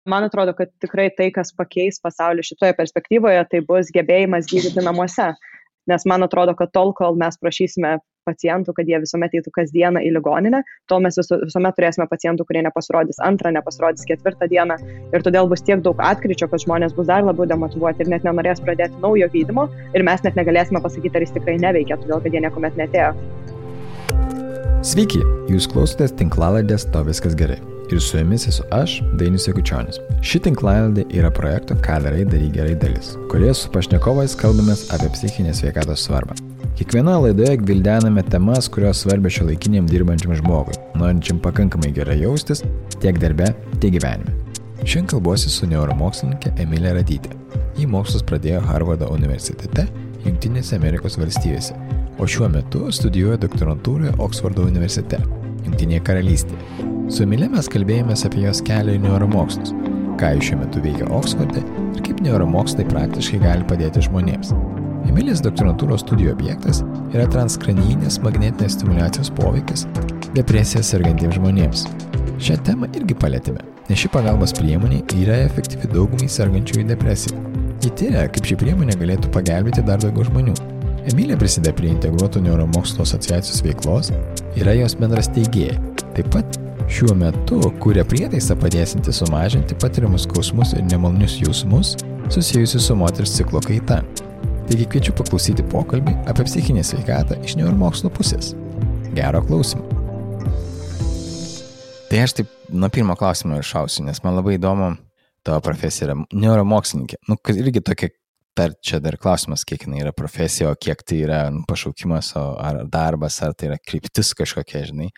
Man atrodo, kad tikrai tai, kas pakeis pasaulį šitoje perspektyvoje, tai bus gebėjimas gydyti namuose. Nes man atrodo, kad tol, kol mes prašysime pacientų, kad jie visuomet eitų kasdieną į ligoninę, tol mes visuomet turėsime pacientų, kurie nepasirodys antrą, nepasirodys ketvirtą dieną. Ir todėl bus tiek daug atkryčio, kad žmonės bus dar labiau demotyvuoti ir net nenorės pradėti naujo gydymo. Ir mes net negalėsime pasakyti, ar jis tikrai neveikia, todėl kad jie niekuomet netėjo. Sveiki, jūs klausotės tinklalaidės To viskas gerai. Ir su jumis esu aš, Dainius Jakučionis. Ši tinklalaidė yra projekto Ką darai, daryk gerai dalis, kurioje su pašnekovais kalbamės apie psichinės sveikatos svarbą. Kiekvienoje laidoje gvildename temas, kurios svarbios šiuolaikiniam dirbančiam žmogui, norinčiam pakankamai gerai jaustis tiek darbe, tiek gyvenime. Šiandien kalbuosi su neuromokslininkė Emilija Radytė. Ji mokslus pradėjo Harvardo universitete, Jungtinėse Amerikos valstijose, o šiuo metu studijuoja doktorantūroje Oksfordo universitete, Jungtinėje karalystėje. Su Emilija mes kalbėjomės apie jos kelią į neuromokslus, ką jis šiuo metu veikia Oksforde ir kaip neuromokslai praktiškai gali padėti žmonėms. Emilijos doktorantūros studijų objektas yra transkranijinės magnetinės stimuliacijos poveikis depresija sergantiems žmonėms. Šią temą irgi palėtėme, nes ši pagalbos priemonė yra efektyvi daugumai sergančiųjų depresija. Ji tyria, kaip ši priemonė galėtų pagelbėti dar daugiau žmonių. Emilija prisideda prie Integruotų neuromokslo asociacijos veiklos, yra jos bendras steigėja. Taip pat šiuo metu kuria prietaisą padėsinti sumažinti patiriamus skausmus ir nemalonius jausmus susijusius su moters ciklo kaita. Taigi kviečiu paklausyti pokalbį apie psichinę sveikatą iš neuromokslo pusės. Gero klausymo. Tai aš taip nuo pirmo klausimo ir šausiu, nes man labai įdomu tavo profesija yra neuromokslininkė. Irgi tokia čia dar klausimas, kiek jinai yra profesija, o kiek tai yra pašaukimas, ar darbas, ar tai yra kryptis kažkokia, žinai.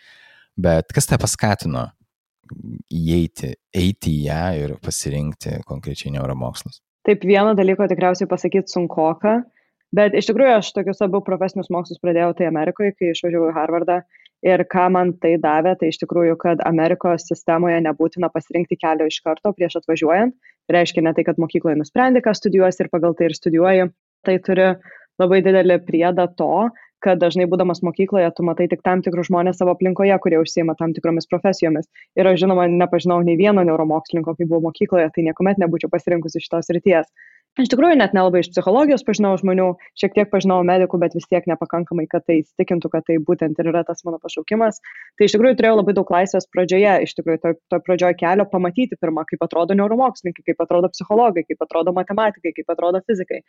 Bet kas tave paskatino eiti į ją ir pasirinkti konkrečiai neuromokslus? Taip, vieno dalyko tikriausiai pasakyti sunkoka, bet iš tikrųjų aš tokius abu profesinius mokslus pradėjau tai Amerikoje, kai išvažiavau į Harvardą. Ir ką man tai davė, tai iš tikrųjų, kad Amerikos sistemoje nebūtina pasirinkti kelio iš karto prieš atvažiuojant. Tai reiškia ne tai, kad mokykloje nusprendi, ką studijuosi ir pagal tai ir studijuoji. Tai turi labai didelį priedą to, kad dažnai būdamas mokykloje, tu matai tik tam tikrus žmonės savo aplinkoje, kurie užsiima tam tikromis profesijomis. Ir aš žinoma, nepažinau nei vieno neuromokslininko, kai buvau mokykloje, tai niekuomet nebūčiau pasirinkusi šitos srities. Iš tikrųjų, net nelabai iš psichologijos pažinau žmonių, šiek tiek pažinau medikų, bet vis tiek nepakankamai, kad tai įsitikintų, kad tai būtent ir yra tas mano pašaukimas. Tai iš tikrųjų turėjau labai daug laisvės pradžioje, iš tikrųjų, to pradžioje kelio pamatyti pirmą, kaip atrodo neuromokslininkai, kaip atrodo psichologai, kaip atrodo matematikai, kaip atrodo fizikai.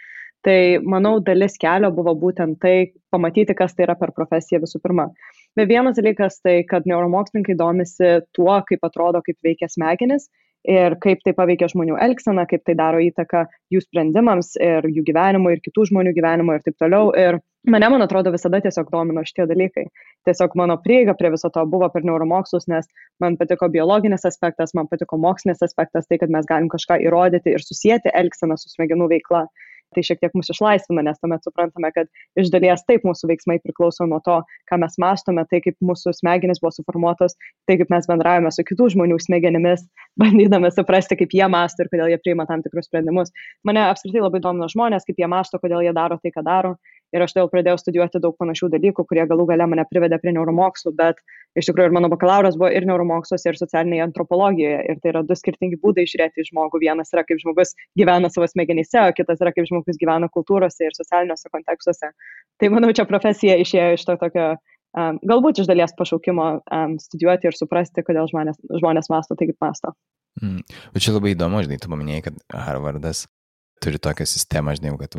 Tai, manau, dalis kelio buvo būtent tai, pamatyti, kas tai yra per profesiją visų pirma. Bet vienas dalykas tai, kad neuromokslininkai domisi tuo, kaip atrodo, kaip veikia smegenis. Ir kaip tai paveikia žmonių elgseną, kaip tai daro įtaką jų sprendimams ir jų gyvenimui ir kitų žmonių gyvenimui ir taip toliau. Ir man atrodo, visada tiesiog domino šitie dalykai. Tiesiog mano prieiga prie viso to buvo per neuromokslus, nes man patiko biologinis aspektas, man patiko mokslinis aspektas, tai, kad mes galim kažką įrodyti ir susijęti elgseną su smegenų veikla. Tai šiek tiek mus išlaisvina, nes tuomet suprantame, kad iš dalies taip mūsų veiksmai priklauso nuo to, ką mes mąstome, tai kaip mūsų smegenys buvo suformuotos, tai kaip mes bendravome su kitų žmonių smegenimis, bandydami suprasti, kaip jie mąsto ir kodėl jie priima tam tikrus sprendimus. Mane apskritai labai domino žmonės, kaip jie mąsto, kodėl jie daro tai, ką daro. Ir aš todėl pradėjau studijuoti daug panašių dalykų, kurie galų gale mane privedė prie neuromokslų, bet iš tikrųjų ir mano bakalauras buvo ir neuromoksluose, ir socialinėje antropologijoje. Ir tai yra du skirtingi būdai žiūrėti į žmogų. Vienas yra, kaip žmogus gyvena savo smegenyse, o kitas yra, kaip žmogus gyvena kultūrose ir socialiniuose kontekstuose. Tai manau, čia profesija išėjo iš to tokio, galbūt iš dalies pašaukimo studijuoti ir suprasti, kodėl žmonės mąsto tai, kaip mąsto. Bet čia labai įdomu, žinai, tu paminėjai, kad Harvardas turi tokią sistemą, žinai, kad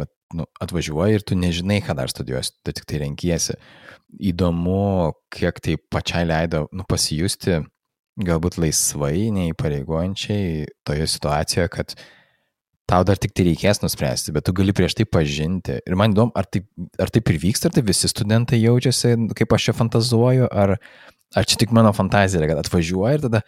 atvažiuoji ir tu nežinai, ką dar studijuosi, tu tik tai renkiesi. Įdomu, kiek tai pačiai leido pasijusti galbūt laisvai, neįpareigojančiai toje situacijoje, kad tau dar tik tai reikės nuspręsti, bet tu gali prieš tai pažinti. Ir man įdomu, ar taip ir vyksta, ar tai visi studentai jaučiasi, kaip aš čia fantazuoju, ar čia tik mano fantazija, kad atvažiuoji ir tada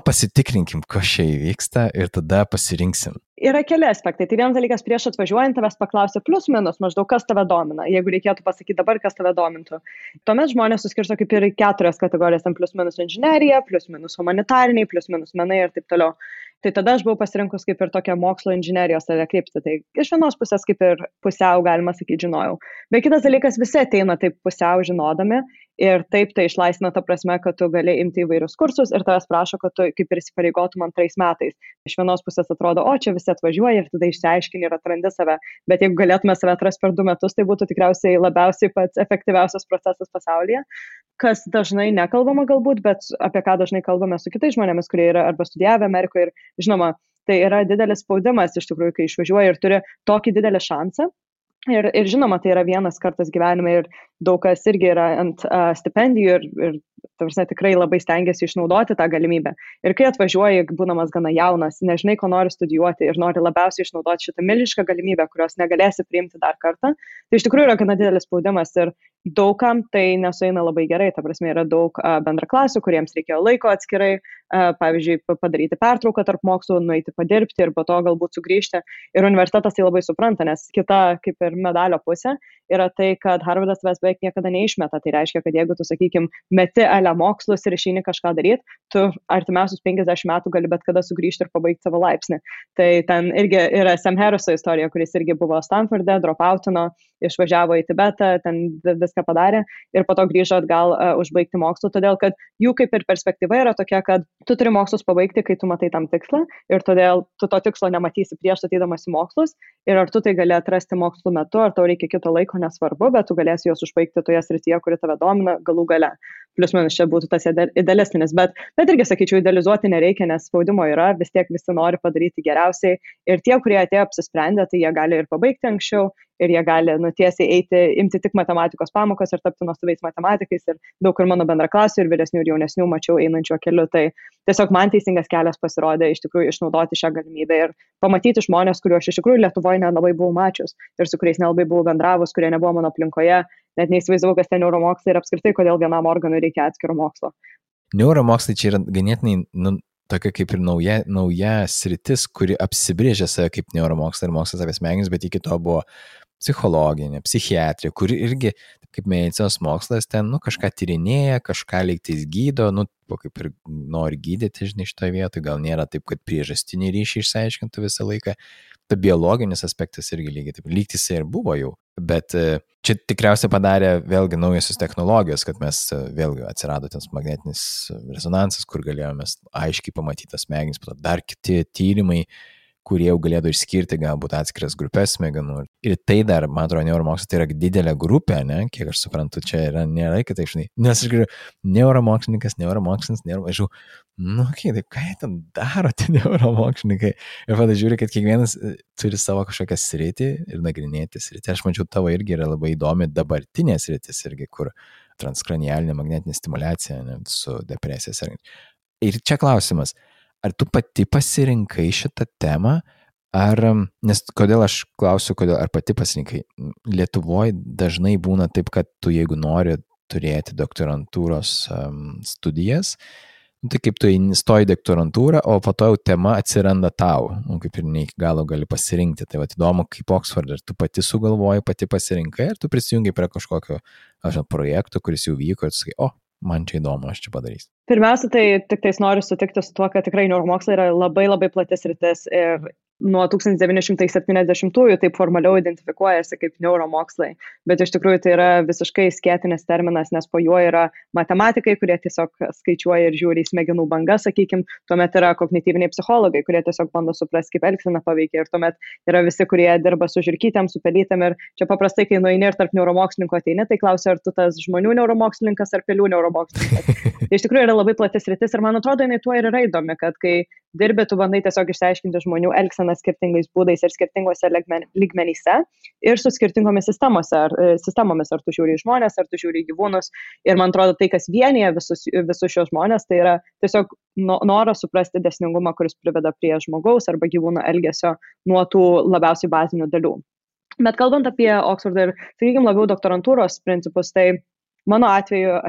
pasitikrinkim, kas čia įvyksta ir tada pasirinksim. Yra keli aspektai. Tai vienas dalykas, prieš atvažiuojant tavęs paklausia plius minus maždaug, kas tave domina. Jeigu reikėtų pasakyti dabar, kas tave domintų. Tuomet žmonės suskirsto kaip ir 4 kategorijas, ten plius minus inžinerija, plius minus humanitariniai, plius minus menai ir taip toliau. Tai tada aš buvau pasirinkus kaip ir tokią mokslo inžinerijos kryptį. Tai iš vienos pusės kaip ir pusiau, galima sakyti, žinojau. Bet kitas dalykas, visi ateina taip pusiau žinodami Ir taip tai išlaisvina ta prasme, kad tu gali imti įvairius kursus ir tavęs prašo, kad tu kaip ir įsipareigotum 2 metais. Iš vienos pusės atrodo, o čia visi atvažiuoja ir tada išsiaiškini ir atrandi save. Bet jeigu galėtume save atrasti per 2 metus, tai būtų tikriausiai labiausiai pats efektyviausias procesas pasaulyje, kas dažnai nekalbama galbūt, bet apie ką dažnai kalbame su kitais žmonėmis, kurie yra arba studijavę Amerikoje ir žinoma, tai yra didelis spaudimas iš tikrųjų, kai išvažiuoji ir turi tokį didelį šansą. Ir žinoma, tai yra vienas kartas gyvenime ir daug kas irgi yra ant stipendijų ir tarsi tikrai labai stengiasi išnaudoti tą galimybę. Ir kai atvažiuoji, būdamas gana jaunas, nežinai, ko nori studijuoti ir nori labiausiai išnaudoti šitą milžinišką galimybę, kurios negalėsi priimti dar kartą, tai iš tikrųjų yra gana didelis spaudimas ir daugam tai nesueina labai gerai. Ta prasme, yra daug bendraklasių, kuriems reikėjo laiko atskirai, pavyzdžiui, padaryti pertrauką tarp mokslų, nueiti padirbti ir po to galbūt sugrįžti. Ir universitetas tai labai supranta, nes kita kaip ir medalio pusė yra tai, kad Harvardas tavęs beveik niekada neišmeta. Tai reiškia, kad jeigu tu, sakykim, meti mokslus ir išeini kažką daryti, tu artimiausius 50 metų gali bet kada sugrįžti ir pabaigti savo laipsnį. Tai ten irgi yra Sam Harriso istorija, kuris irgi buvo Stanforde, dropoutino, išvažiavo į Tibetą, ten viską padarė ir po to grįžo atgal užbaigti mokslų, todėl kad jų kaip ir perspektyva yra tokia, kad tu turi mokslus pabaigti, kai tu matai tam tikslą ir todėl tu to tikslo nematysi prieš atedamas į mokslus ir ar tu tai gali atrasti mokslų metu, ar tau reikia kito laiko, nesvarbu, bet tu galėsi juos užbaigti toje srityje, kuri tave domina galų gale. Plius minus čia būtų tas idealistinis, bet irgi sakyčiau, idealizuoti nereikia, nes spaudimo yra, vis tiek visi nori padaryti geriausiai ir tie, kurie atėjo apsisprendę, tai jie gali ir pabaigti anksčiau ir jie gali nutiesiai imti tik matematikos pamokas ir tapti nuostabiais matematikais ir daug ir mano bendraklasių ir vyresnių ir jaunesnių mačiau einančio keliu, tai tiesiog man teisingas kelias pasirodė iš tikrųjų išnaudoti šią galimybę ir pamatyti žmonės, kuriuos iš tikrųjų Lietuvoje nelabai buvau mačius ir su kuriais nelabai buvau bendravus, kurie nebuvo mano aplinkoje, net neįsivaizdavau, kas ten neuromokslai ir apskritai, kodėl vienam organui reikia atskiro mokslo. Neuromokslai čia yra ganėtinai tokia kaip ir nauja sritis, kuri apsibrėžė save kaip neuromokslai ir mokslas apie smegenis, bet iki to buvo psichologinė, psichiatrija, kuri irgi, kaip medicinos mokslas, ten kažką tyrinėja, kažką lygtais gydo, kaip ir nori gydyti, žinai, šitoje vietoje, gal nėra taip, kad priežastinį ryšį išsiaiškintų visą laiką. Ta biologinis aspektas irgi lygiai taip, lygtis ir buvo jau, bet čia tikriausiai padarė vėlgi naujosios technologijos, kad mes vėlgi atsirado ten magnetinis rezonansas, kur galėjome aiškiai pamatyti tas smegenis, dar kiti tyrimai, kurie jau galėtų išskirti galbūt atskiras grupės smegenų. Ir tai dar, man atrodo, neuromokslas tai yra didelė grupė, ne? Kiek aš suprantu, čia nėra kitaip, žinai. Nes aš žiūriu, neuromokslininkas, tai ką jie ten daro, tie neuromokslininkai? Ir tada žiūri, kad kiekvienas turi savo kažkokią sritį ir nagrinėti sritį. Aš mačiau, tavo irgi yra labai įdomi dabartinė sritis irgi, kur transkranialinė magnetinė stimulacija, ne, su depresija. Ir čia klausimas. Ar tu pati pasirinkai šitą temą, nes kodėl aš klausiu, ar pati pasirinkai? Lietuvoje dažnai būna taip, kad tu jeigu nori turėti doktorantūros studijas, tai kaip tu stoji doktorantūrą, o po to jau tema atsiranda tau, kaip ir ne iki galo gali pasirinkti. Tai įdomu, kaip Oxford, ar tu pati sugalvoji, pati pasirinkai, ar tu prisijungai prie kažkokio projekto, kuris jau vyko ir tu sakai, man čia įdomu, aš čia padarysiu. Pirmiausia, tai tik tais noriu sutikti su tuo, kad tikrai neuromokslai yra labai labai platis sritis ir nuo 1970-ųjų taip formaliau identifikuojasi kaip neuromokslai, bet iš tikrųjų tai yra visiškai skėtinis terminas, nes po juo yra matematikai, kurie tiesiog skaičiuoja ir žiūri į smegenų bangas, sakykim, tuomet yra kognityviniai psichologai, kurie tiesiog bando suprasti, kaip elgsena paveikia ir tuomet yra visi, kurie dirba su žirkytėm, su pelytėm ir čia paprastai, kai nueini ir tarp neuromokslininkų ateini, tai klausia, ar tu tas žmonių neuromokslininkas ar pelių neuromokslininkas. Tai iš tikrųjų yra labai platis sritis ir man atrodo, jinai tuo ir yra įdomi, kad kai dirbi, tu bandai tiesiog išsiaiškinti žmonių elgseną skirtingais būdais ir skirtingose lygmenyse ir su skirtingomis sistemomis, ar tu žiūri į žmonės, ar tu žiūri į gyvūnus. Ir man atrodo, tai, kas vienyje visus šios žmonės, tai yra tiesiog noras suprasti dėsningumą, kuris priveda prie žmogaus arba gyvūno elgesio nuo tų labiausiai bazinių dalių. Bet kalbant apie Oxfordą ir, sakykime, labiau doktorantūros principus, tai mano atveju,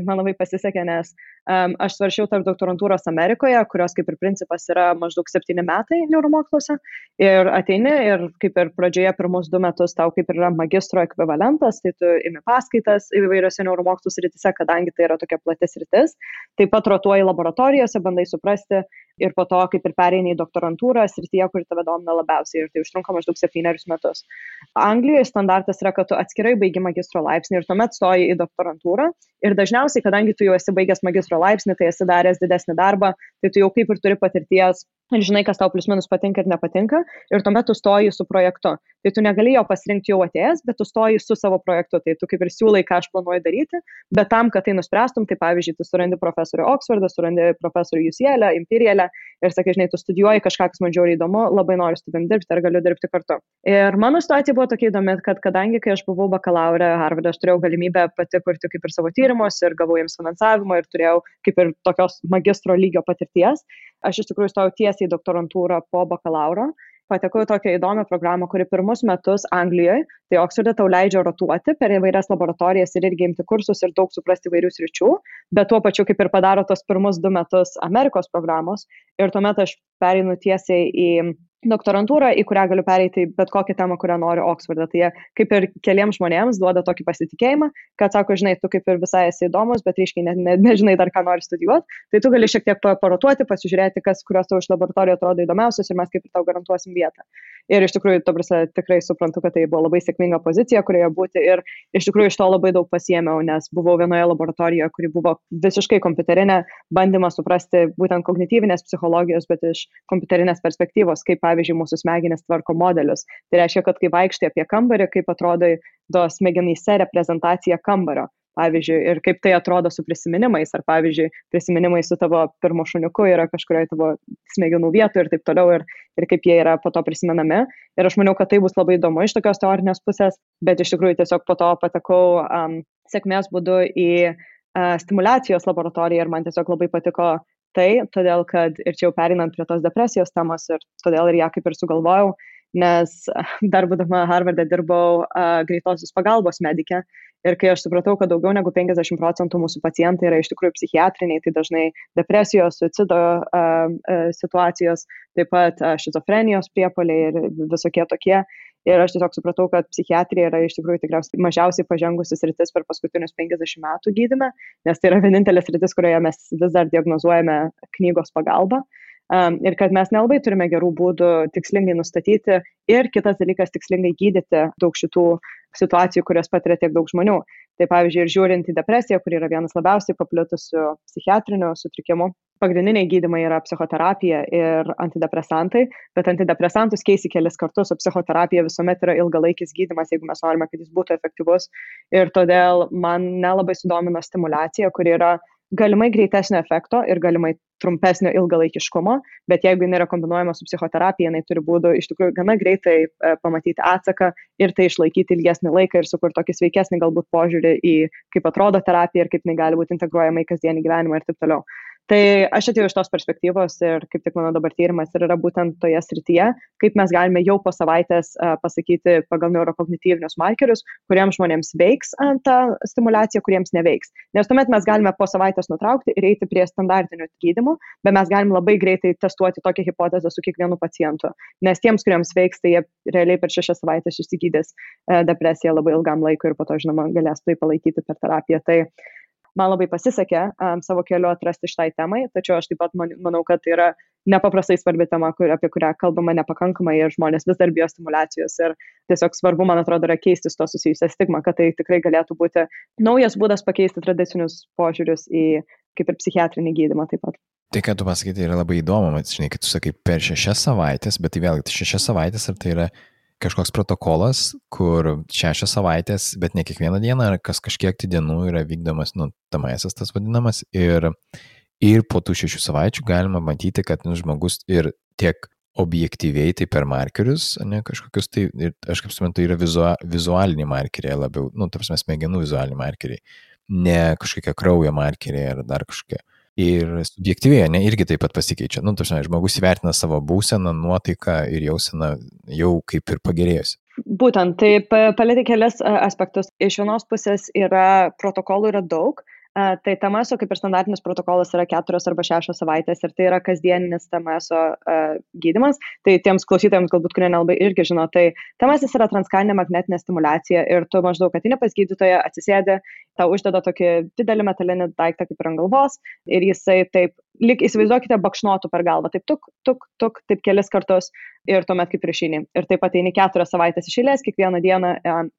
man labai pasisekė, nes Aš svaršiau tarp doktorantūros Amerikoje, kurios kaip ir principas yra maždaug 7 metai neuromoksluose. Ir ateini ir kaip ir pradžioje pirmus 2 metus tau kaip ir yra magistro ekvivalentas, tai tu imi paskaitas įvairiose neuromokslų srityse, kadangi tai yra tokia plati sritis. Taip pat rotuoji laboratorijose, bandai suprasti ir po to kaip ir pereini į doktorantūrą srityje, kuri tave domina labiausiai ir tai užtrunka maždaug 7 metus. Anglijoje standartas yra, kad tu atskirai baigi magistro laipsnį ir tuomet stoji į doktorantūrą ir dažniausiai, kadangi tu jau esi baigęs magistro laipsnį, tai esi daręs didesnį darbą, tai tu jau kaip ir turi patirties ir žinai, kas tau plius minus patinka ir nepatinka ir tuomet tu stoji su projektu. Tai tu negali jo pasirinkti jau atėjęs, bet tu stoji su savo projektu, tai tu kaip ir siūlai, ką aš planuoju daryti, bet tam, kad tai nuspręstum, tai pavyzdžiui, tu surandi profesorių Oksfordą, surandi profesorių UCL, Imperialę ir sakai, žinai, tu studijuoji kažką, kas man žiauriai įdomu, labai noriu su tavim dirbti ar galiu dirbti kartu. Ir mano situacija buvo tokia įdomi, kad kadangi, kai aš buvau bakalaure Harvarde, aš turėjau galimybę pati kurti kaip ir savo tyrimus ir gavau jiems finansavimą ir turėjau kaip ir tokios magistro lygio patirties, aš iš tikrųjų stojau tiesiai į doktorantūrą po bakalauro. Patekau į tokią įdomią programą, kuri pirmus metus Anglijoje, tai Oksforde tau leidžia rotuoti per įvairias laboratorijas ir irgi imti kursus ir daug suprasti įvairių sričių, bet tuo pačiu kaip ir padaro tos pirmus 2 metus Amerikos programos ir tuomet aš pereinu tiesiai į doktorantūrą, į kurią galiu pereiti bet kokią temą, kurią noriu Oksforde. Tai jie kaip ir keliems žmonėms duoda tokį pasitikėjimą, kad sako, žinai, tu kaip ir visai esi įdomus, bet ryškiai nežinai dar, ką nori studijuoti, tai tu gali šiek tiek parotuoti, pasižiūrėti, kurios tau iš laboratorijų atrodo įdomiausios ir mes kaip ir tau garantuosim vietą. Ir iš tikrųjų, tikrai suprantu, kad tai buvo labai sėkminga pozicija, kurioje būti ir iš tikrųjų iš to labai daug pasiėmiau, nes buvau vienoje laboratorijoje, kuri buvo visiškai kompiuterinė, bandymas suprasti būtent kognityvinės psichologijos, bet iš kompiuterinės perspektyvos, kaip pavyzdžiui mūsų smegenys tvarko modelius. Tai reiškia, kad kai vaikštai apie kambarį, kaip atrodo to smegenyse reprezentacija kambario. Pavyzdžiui, ir kaip tai atrodo su prisiminimais, ar pavyzdžiui, prisiminimai su tavo pirmo šuniuku yra kažkurioje tavo smegenų vietoje ir taip toliau, ir kaip jie yra po to prisimenami. Ir aš maniau, kad tai bus labai įdomu iš tokios teorinės pusės, bet iš tikrųjų tiesiog po to patekau sėkmės būdu į stimulacijos laboratoriją ir man tiesiog labai patiko tai, todėl kad ir čia jau pereinant prie tos depresijos temos ir todėl ir ją kaip ir sugalvojau, nes dar būdama Harvarde dirbau greitosios pagalbos medike. Ir kai aš supratau, kad daugiau negu 50% mūsų pacientai yra iš tikrųjų psichiatriniai, tai dažnai depresijos, suicido situacijos, taip pat šizofrenijos priepuoliai ir visokie tokie. Ir aš tiesiog supratau, kad psichiatrija yra iš tikrųjų tikriausiai mažiausiai pažengusi sritis per paskutinius 50 metų gydyme, nes tai yra vienintelė sritis, kurioje mes vis dar diagnozuojame knygos pagalba. Ir kad mes nelabai turime gerų būdų tikslingai nustatyti ir kitas dalykas tikslingai gydyti daug šitų situacijų, kurias patiria tiek daug žmonių. Tai pavyzdžiui, ir žiūrint į depresiją, kuri yra vienas labiausiai paplitusių psichiatrinių sutrikimų, pagrindiniai gydymai yra psichoterapija ir antidepresantai, bet antidepresantus keisi kelis kartus, o psichoterapija visuomet yra ilgalaikis gydymas, jeigu mes norime, kad jis būtų efektyvus. Ir todėl man nelabai sudomino stimulacija, kuri yra galimai greitesnio efekto ir galimai trumpesnio ilgalaikiškumo, bet jeigu jinai yra kombinuojama su psichoterapija, jinai turi būdų iš tikrųjų gana greitai pamatyti atsaką ir tai išlaikyti ilgesnį laiką ir sukurti tokį sveikesnį galbūt požiūrį į kaip atrodo terapija ir kaip jinai gali būti integruojama į kasdienį gyvenimą ir taip toliau. Tai aš atėjau iš tos perspektyvos ir kaip tik mano dabar tyrimas ir yra būtent toje srityje, kaip mes galime jau po savaitės pasakyti pagal neurokognityvinius markerius, kuriems žmonėms veiks ta stimulacija, kuriems neveiks. Nes tuomet mes galime po savaitės nutraukti ir eiti prie standartinių gydymų, bet mes galim labai greitai testuoti tokią hipotezę su kiekvienu pacientu. Nes tiems, kuriems veiks, tai jie realiai per 6 savaitės išsigydys depresiją labai ilgam laikui ir po to, žinoma, galės tai palaikyti per terapiją. Tai man labai pasisekė savo keliu atrasti šitai temai, tačiau aš taip pat manau, kad tai yra nepaprastai svarbi tema, apie kurią kalbama nepakankamai ir žmonės vis dar bijo stimulacijos ir tiesiog svarbu, man atrodo, yra keisti su to susijusią stigmą, kad tai tikrai galėtų būti naujas būdas pakeisti tradicinius požiūrius į kaip ir psichiatrinį gydymą taip pat. Tai, ką tu pasakyti, yra labai įdomu, žinai, kad tu sakai per 6 savaitės, bet tai vėlgi 6 savaitės, ar tai yra kažkoks protokolas, kur 6 savaitės, bet ne kiekvieną dieną, ar kažkiek tai dienų yra vykdomas, tamaisas tas vadinamas, ir po tų 6 savaičių galima matyti, kad žmogus ir tiek objektyviai, tai per markerius, ne kažkokius, tai ir aš kaip suprantu, yra vizualiniai markeriai labiau, ta prasme, smegenų vizualiniai markeriai, ne kažkokie kraujo markeriai ar dar kažkokie. Ir subjektyviai, irgi taip pat pasikeičia. Tarsi, žmogus įvertina savo būseną, nuotaiką ir jauseną jau kaip ir pagerėjusi. Būtent, tai palėtė kelias aspektus. Iš vienos pusės protokolų yra daug, Tai TMSO kaip ir standartinis protokolas yra 4 arba 6 savaitės ir tai yra kasdieninis TMSO gydymas. Tai tiems klausytojams, galbūt, kurie nelabai irgi žino, tai TMS yra transkaninė magnetinė stimulacija ir tu maždaug ateini pas gydytoją, atsisėdi, tau uždeda tokį didelį metalinį daiktą kaip ir ant galvos ir jisai taip, lyg įsivaizduokite, bakšnotų per galvą, taip tuk, taip kelis kartus ir tuomet kaip ir išeini. Ir taip ateini 4 savaitės iš eilės, kiekvieną dieną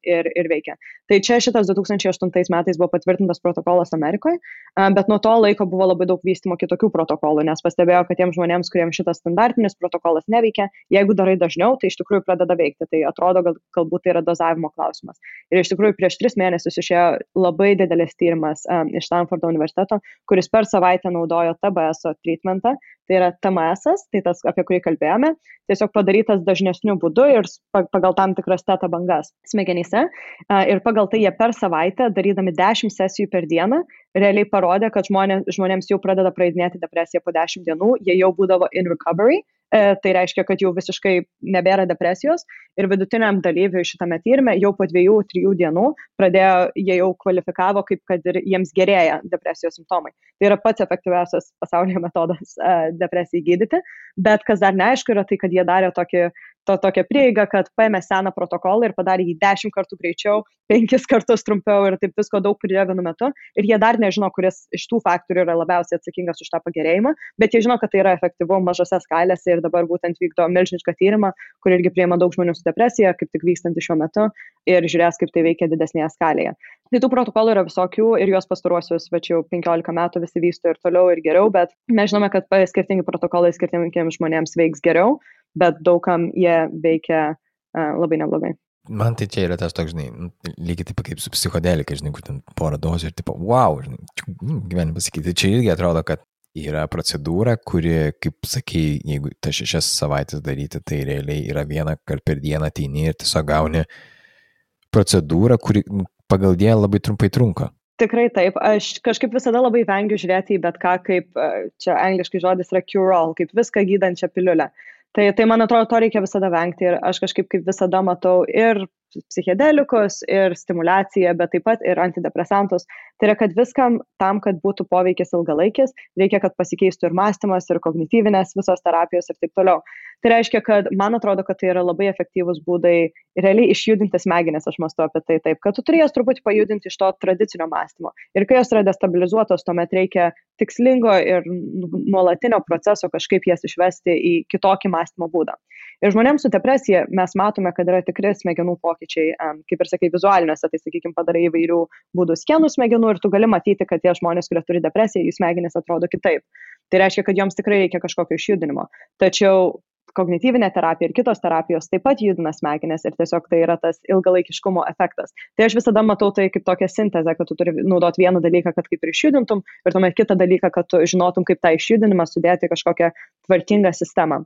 ir veikia. Tai čia šitas 2008 metais buvo patvirtintas protokolas Amerikoje, bet nuo to laiko buvo labai daug vystymo kitokių protokolų, nes pastebėjo, kad tiems žmonėms, kuriems šitas standartinis protokolas neveikia, jeigu darai dažniau, tai iš tikrųjų pradeda veikti. Tai atrodo, galbūt tai yra dozavimo klausimas. Ir iš tikrųjų prieš 3 mėnesius išėjo labai didelis tyrimas iš Stanfordo universiteto, kuris per savaitę naudojo TBS treatmentą. Tai yra TMS, tai tas, apie kurį kalbėjome, tiesiog padarytas dažnesniu būdu ir pagal tam tikras teta bangas smegenyse. Ir pagal tai jie per savaitę, darydami 10 sesijų per dieną, realiai parodė, kad žmonėms jau pradeda praeidinėti depresiją po 10 dienų, jie jau būdavo in recovery. Tai reiškia, kad jau visiškai nebėra depresijos ir vidutiniam dalyviui šitame tyrime jau po 2-3 dienų jie jau kvalifikavo, kaip kad ir jiems gerėja depresijos simptomai. Tai yra pats efektyviausias pasaulyje metodas depresijai gydyti, bet kas dar neaišku yra tai, kad jie darė tokią prieigą, kad paėmė seną protokolą ir padarė jį 10 kartų greičiau, 5 kartus trumpiau ir taip visko daug pridėjo vienu metu. Ir jie dar nežino, kuris iš tų faktorių yra labiausiai atsakingas už tą pagerėjimą, bet jie žino, kad tai yra efektyvu mažose skalėse ir dabar būtent vykdo milžinišką tyrimą, kur irgi priima daug žmonių su depresija, kaip tik vykstantį šiuo metu ir žiūrės, kaip tai veikia didesnėje skalėje. Tai tų protokolų yra visokių ir juos pastaruosius, jau 15 metų visi vysto ir toliau ir geriau, bet mes žinome, kad skirtingi protokolai skirtingiems žmonėms veiks geriau, bet daugam jie veikia labai neblogai. Man tai čia yra tas toks, žinai, lygiai taip kaip su psichodelika, žinai, kur ten porą dozių ir tipo, wow, žinai, gyvenime pasakyti. Čia irgi atrodo, kad yra procedūra, kuri, kaip sakai, jeigu tas 6 savaitės daryti, tai realiai yra 1 kartą per dieną ateini ir tiesiog gauni procedūrą, kuri pagal dieną labai trumpai trunka. Tikrai taip. Aš kažkaip visada labai vengiu žiūrėti į bet ką, kaip čia angliškai žodis yra cure-all, kaip viską gydančią piliulę. Tai man atrodo, to reikia visada vengti ir aš kažkaip kaip visada matau ir psichedelikus, ir stimulaciją, bet taip pat ir antidepresantus. Tai yra, kad viskam tam, kad būtų poveikis ilgalaikis, reikia, kad pasikeistų ir mąstymas, ir kognityvinės visos terapijos ir taip toliau. Tai reiškia, kad man atrodo, kad tai yra labai efektyvūs būdai realiai išjudinti smegenis, aš mąstu apie tai taip, kad tu turėjai truputį pajudinti iš to tradicinio mąstymo. Ir kai jos yra destabilizuotos, tuomet reikia tikslingo ir nuolatinio proceso kažkaip jas išvesti į kitokį mąstymo būdą. Ir žmonėms su depresija mes matome, kad yra tikri smegenų pokyčiai, kaip ir sakai, vizualiniuose, tai sakykime, padarai įvairių būdų skenų smegenų ir tu gali matyti, kad tie žmonės, kurie turi depresiją, jų smegenys atrodo kitaip. Tai reiškia, kad joms tikrai reikia kažkokio išjudinimo. Tačiau kognityvinė terapija ir kitos terapijos taip pat judina smegenis ir tiesiog tai yra tas ilgalaikiškumo efektas. Tai aš visada matau tai kaip tokią sintezę, kad tu turi naudoti vieną dalyką, kad kaip ir išjudintum, ir tuomet kitą dalyką, kad tu žinotum, kaip tą išjudinimą sudėti kažkokią tvarkingą sistemą.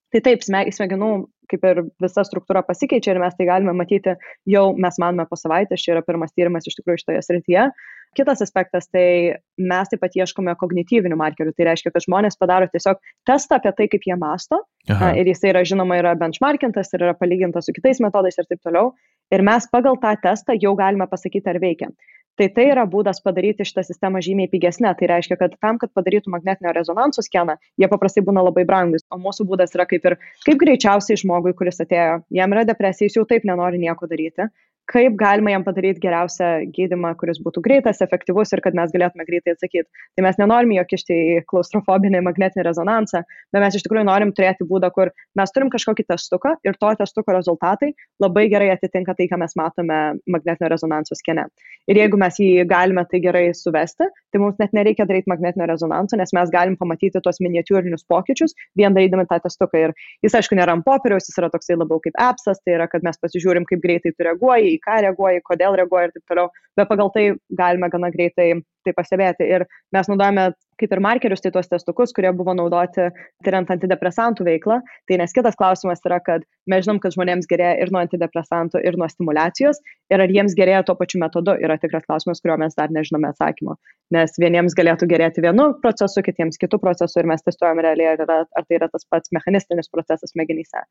Tai taip, smegenų kaip ir visa struktūra pasikeičia ir mes tai galime matyti jau, mes manome, po savaitės, čia yra pirmas tyrimas iš tikrųjų šitoje srityje. Kitas aspektas, tai mes taip pat ieškome kognityvinių markerių, tai reiškia, kad žmonės padaro tiesiog testą apie tai, kaip jie mąsto. Aha. Ir jis yra, žinoma, yra benchmarkintas ir yra palygintas su kitais metodais ir taip toliau. Ir mes pagal tą testą jau galime pasakyti, ar veikia. Tai yra būdas padaryti šitą sistemą žymiai pigesnę. Tai reiškia, kad tam, kad padarytų magnetinio rezonanso skeną, jie paprastai būna labai brangus. O mūsų būdas yra kaip greičiausiai žmogui, kuris atėjo, jam yra depresija, jis jau taip nenori nieko daryti. Kaip galima jam padaryti geriausią gydymą, kuris būtų greitas, efektyvus ir kad mes galėtume greitai atsakyti. Tai mes nenorime jo kišti į klaustrofobinį magnetinį rezonansą, bet mes iš tikrųjų norim turėti būdą, kur mes turim kažkokį testuką ir to testuko rezultatai labai gerai atitinka tai, ką mes matome magnetinio rezonanso skene. Ir jeigu mes jį galime tai gerai suvesti, tai mums net nereikia daryti magnetinio rezonanso, nes mes galim pamatyti tuos miniatiūrinius pokyčius, vien darydami tą testuką. Ir jis, aišku, nėra ant popieriaus, jis yra toksai labiau kaip appsas, tai yra, kad mes pasižiūrim, kaip greitai tu reaguoji, į ką reaguoji, kodėl reaguoji ir taip toliau, bet pagal tai galime gana greitai tai pastebėti. Ir mes naudojame kaip ir markerius, tai tuos testukus, kurie buvo naudoti tyriant antidepresantų veiklą. Tai nes kitas klausimas yra, kad mes žinom, kad žmonėms gerėja ir nuo antidepresantų, ir nuo stimulacijos, ir ar jiems gerėja tuo pačiu metodu, yra tikras klausimas, kurio mes dar nežinome atsakymo. Nes vieniems galėtų gerėti vienu procesu, kitiems kitų procesų, ir mes testuojame realiai, ar tai yra tas pats mechanistinis procesas smegenyse.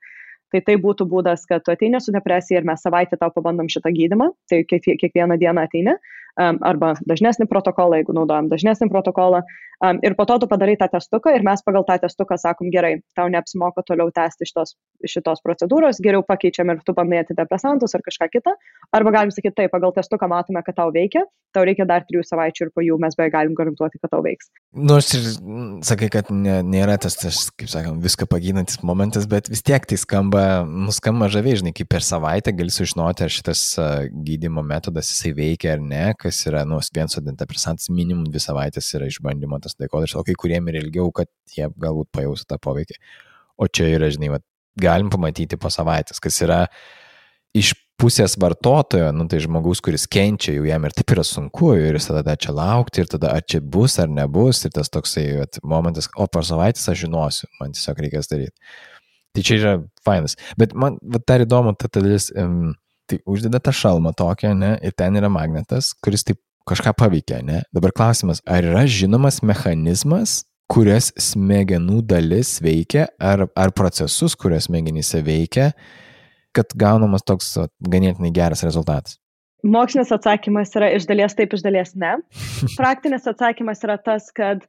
Tai būtų būdas, kad tu ateini su depresija ir mes savaitę tau pabandom šitą gydymą, tai kiekvieną dieną ateini, arba dažnesnį protokolą, jeigu naudojam dažnesnį protokolą. Ir po to tu padarai tą testuką ir mes pagal tą testuką sakom, gerai, tau neapsimoka toliau tęsti šitos procedūros, geriau pakeičiam ir tu bandai antidepresantus ar kažką kitą. Arba galim sakyti, taip, pagal testuką matome, kad tau veikia, tau reikia dar 3 savaičių ir po jų mes beveik galim garantuoti, kad tau veiks. Nors ir sakai, kad nėra tas, kaip sakant, viską pagydantis momentas, bet vis tiek tai nuskamba žaviai, žinai, kaip per savaitę gali sužinoti, ar šitas gydymo metodas jisai veikia ar ne, kas yra, vienas antidepresantas minimum 2 savaitės yra išbandymo tas laikotarpis, o kai kuriem ir ilgiau, kad jie galbūt pajaustų tą poveikį. O čia yra, žinai, galim pamatyti po savaitės, kas yra iš pusės vartotojo, tai žmogaus, kuris kenčia, jau jam ir taip yra sunku, ir jis tada čia laukti, ir tada ar čia bus, ar nebus, ir tas toksai momentas, o per savaitės aš žinosiu, man tiesiog reikės daryti. Tai čia yra fainas. Bet man dar įdomu, ta dalis, tai uždeda tą šalmą tokią, ne, ir ten yra magnetas, kuris taip kažką paveikia, ne. Dabar klausimas, ar yra žinomas mechanizmas, kurias smegenų dalis veikia, ar procesus, kurias smegenyse veikia, kad gaunamas toks ganėtinai geras rezultatas? Mokslinis atsakymas yra iš dalies taip, iš dalies ne. Praktinis atsakymas yra tas, kad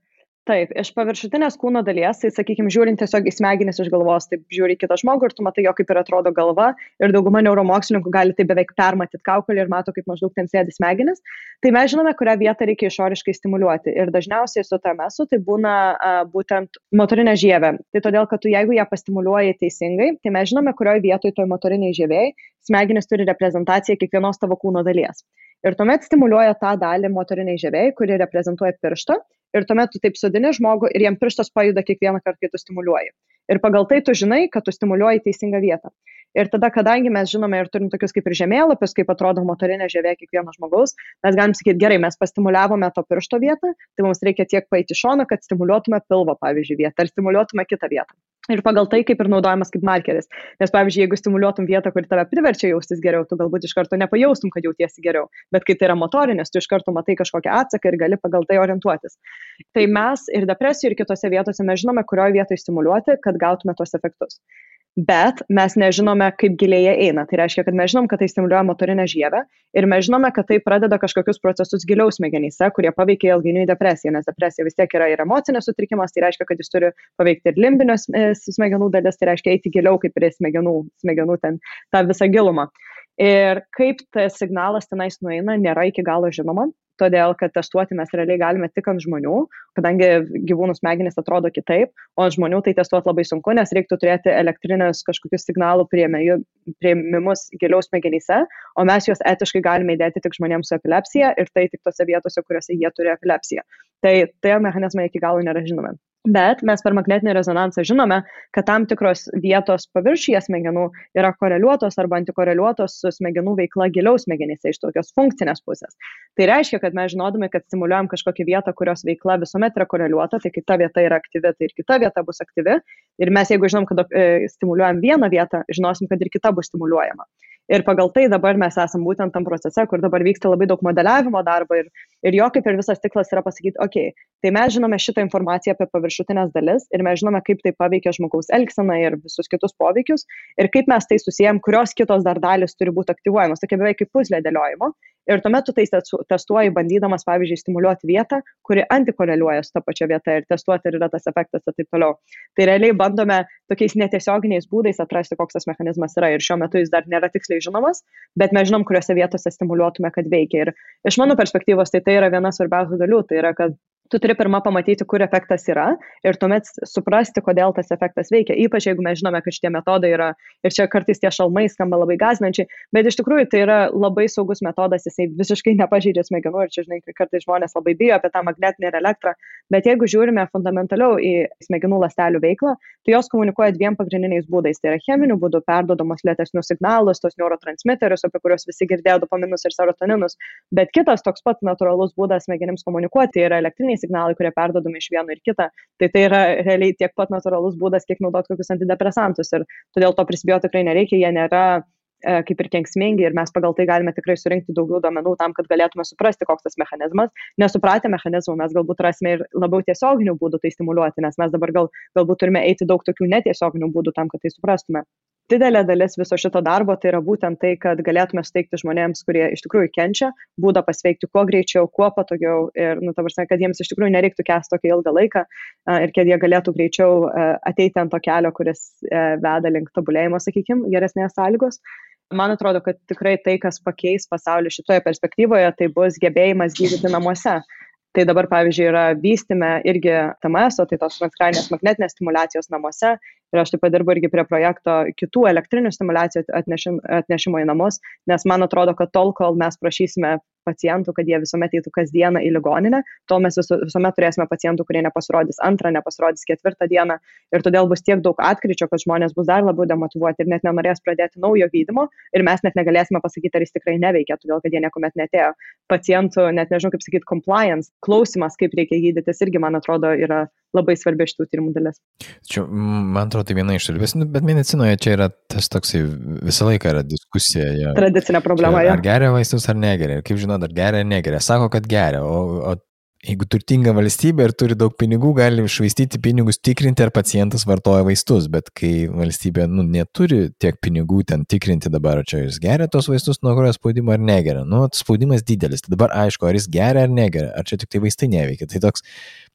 taip, iš paviršutinės kūno dalies, tai sakykime, žiūrint tiesiog į smegenis iš galvos, taip žiūri kitą žmogų ir tu matai jo, kaip ir atrodo galva, ir dauguma neuromokslininkų gali tai beveik permatyti kaukolį ir mato, kaip maždaug ten sėdi smegenis. Tai mes žinome, kurią vietą reikia išoriškai stimuliuoti. Ir dažniausiai su TMS tai būna būtent motorinė žievė. Tai todėl, kad tu jeigu ją pastimuliuoji teisingai, tai mes žinome, kurioje vietoje toj motoriniai žievėjai smegenis turi reprezentaciją kiekvienos tavo kūno dalies. Ir tuomet stimuliuoja tą dalį motoriniai žievėjai, kuri reprezentuoja pirštą. Ir tuomet tu taip sodini žmogų ir jam pirštas pajuda kiekvieną kartą, kai tu stimuliuoji. Ir pagal tai tu žinai, kad tu stimuliuoji teisingą vietą. Ir tada, kadangi mes žinome ir turim tokius kaip ir žemėlapius, kaip atrodo motorinė žievė kiekvieno žmogaus, mes galim sakyti, gerai, mes pastimuliavome to piršto vietą, tai mums reikia tiek paeiti šoną, kad stimuliuotume pilvo, pavyzdžiui, vietą, ar stimuliuotume kitą vietą. Ir pagal tai kaip ir naudojamas kaip markeris. Nes, pavyzdžiui, jeigu stimuliuotum vietą, kuri tave priverčia jaustis geriau, tu galbūt iš karto nepajaustum, kad jautiesi geriau. Bet kai tai yra motorinis, tu iš karto matai kažkokią atsaką ir gali pagal tai orientuotis. Tai mes ir depresijų, ir kitose vietose mes žinome, kurioje vietoje stimuliuoti, kad gautume tos efektus. Bet mes nežinome, kaip giliai jie eina. Tai reiškia, kad mes žinom, kad tai stimuliuoja motorinę žievę ir mes žinome, kad tai pradeda kažkokius procesus giliau smegenyse, kurie paveikia ilgainiui depresiją, nes depresija vis tiek yra ir emocinės sutrikimas, tai reiškia, kad jis turi paveikti ir limbinės smegenų dalis, tai reiškia eiti giliau kaip ir smegenų ten tą visą gilumą. Ir kaip tas signalas tenais nueina, nėra iki galo žinoma. Todėl, kad testuoti mes realiai galime tik ant žmonių, kadangi gyvūnų smegenys atrodo kitaip, o ant žmonių tai testuoti labai sunku, nes reiktų turėti elektrinės kažkokius signalų priėmimus giliau smegenyse, o mes juos etiškai galime įdėti tik žmonėms su epilepsija ir tai tik tose vietose, kuriuose jie turi epilepsiją. Tai mechanizmai iki galo nėra žinomi. Bet mes per magnetinį rezonansą žinome, kad tam tikros vietos paviršiuje smegenų yra koreliuotos arba antikoreliuotos su smegenų veikla giliau smegenyse iš tokios funkcinės pusės. Tai reiškia, kad mes žinodami, kad stimuliuojam kažkokią vietą, kurios veikla visuomet yra koreliuota, tai kai ta vieta yra aktyvi, tai ir kita vieta bus aktyvi. Ir mes jeigu žinom, kad stimuliuojam vieną vietą, žinosim, kad ir kita bus stimuliuojama. Ir pagal tai dabar mes esam būtent tam procese, kur dabar vyksta labai daug modeliavimo darbo ir jo kaip ir visas tikslas yra pasakyti, okei, tai mes žinome šitą informaciją apie paviršutinės dalis ir mes žinome, kaip tai paveikia žmogaus elgseną ir visus kitus poveikius ir kaip mes tai susijęm, kurios kitos dar dalis turi būti aktyvuojamos, tokia beveik kaip puzlė dėliojimo. Ir tuomet tu tai testuoji, bandydamas, pavyzdžiui, stimuliuoti vietą, kuri antikoreliuoja su ta pačia vieta ir testuoti, ar yra tas efektas ir taip toliau. Tai realiai bandome tokiais netiesioginiais būdais atrasti, koks tas mechanizmas yra ir šiuo metu jis dar nėra tiksliai žinomas, bet mes žinom, kuriuose vietose stimuliuotume, kad veikia. Ir iš mano perspektyvos tai yra viena svarbiausių dalių, tai yra, kad tu turi pirmą pamatyti, kur efektas yra ir tuomet suprasti, kodėl tas efektas veikia. Ypač jeigu mes žinome, kad šitie metodai yra, ir čia kartais tie šalmai skamba labai gąsdinančiai, bet iš tikrųjų tai yra labai saugus metodas, jisai visiškai nepažeidžia smegenų ir čia, žinai, kartais žmonės labai bijo apie tą magnetinę ir elektrą, bet jeigu žiūrime fundamentaliau į smegenų ląstelių veiklą, tai jos komunikuoja 2 pagrindiniais būdais. Tai yra cheminiu būdu perdodamos lėtesnius signalus, tos neurotransmiterius, apie kuriuos visi girdėjo dopaminus ir serotoninus, bet kitas toks pat natūralus būdas smegenims komunikuoti yra elektriniai signalai, kurie perdodami iš vieno ir kitą. Tai yra realiai tiek pat natūralus būdas, kiek naudoti kokius antidepresantus. Ir todėl to prisibijoti tikrai nereikia, jie nėra kaip ir kenksmingi ir mes pagal tai galime tikrai surinkti daugiau duomenų tam, kad galėtume suprasti, koks tas mechanizmas. Nesupratę mechanizmų mes galbūt rasime ir labiau tiesioginių būdų tai stimuliuoti, nes mes dabar galbūt turime eiti daug tokių netiesioginių būdų tam, kad tai suprastume. didelė dalis viso šito darbo tai yra būtent tai, kad galėtume suteikti žmonėms, kurie iš tikrųjų kenčia, būdą pasveikti kuo greičiau, kuo patogiau ir, ta prasme, kad jiems iš tikrųjų nereiktų kęsti tokį ilgą laiką ir kad jie galėtų greičiau ateiti ant to kelio, kuris veda link tobulėjimo, sakykime, geresnės sąlygos. Man atrodo, kad tikrai tai, kas pakeis pasaulį šitoje perspektyvoje, tai bus gebėjimas gydyti namuose. Tai dabar, pavyzdžiui, yra vystyme irgi TMS, tai tos transkraninės magnetinės stimulacijos namuose. Ir aš taip pat dirbu irgi prie projekto kitų elektrinių stimulacijų atnešimo į namus, nes man atrodo, kad tol, kol mes prašysime pacientų, kad jie visuomet eitų kasdieną į ligoninę, tol mes visuomet turėsime pacientų, kurie nepasirodys antrą, nepasirodys ketvirtą dieną ir todėl bus tiek daug atkryčio, kad žmonės bus dar labiau demotyvuoti ir net nenorės pradėti naujo gydymo ir mes net negalėsime pasakyti, ar jis tikrai neveikia, todėl kad jie niekuomet netėjo. Pacientų, net nežinau kaip sakyti, compliance, klausimas, kaip reikia gydytis, irgi, man atrodo, yra labai svarbi šitų tyrimų dalis. Čia, man atrodo, tai viena iš dalis, bet medicinoje čia yra tas toksai, visą laiką yra diskusija. Ja. Tradicinė problema. Čia, ar geria vaistus, ar negeria. Kaip žinot, ar geria, ar negeria. Sako, kad geria, o jeigu turtinga valstybė ir turi daug pinigų, gali švaistyti pinigus tikrinti, ar pacientas vartoja vaistus, bet kai valstybė neturi tiek pinigų ten tikrinti dabar, čia jis geria tos vaistus nuo kurio spaudimo ar negeria. Spaudimas didelis, tai dabar aišku, ar jis geria ar negeria, ar čia tik tai vaistai neveikia. Tai toks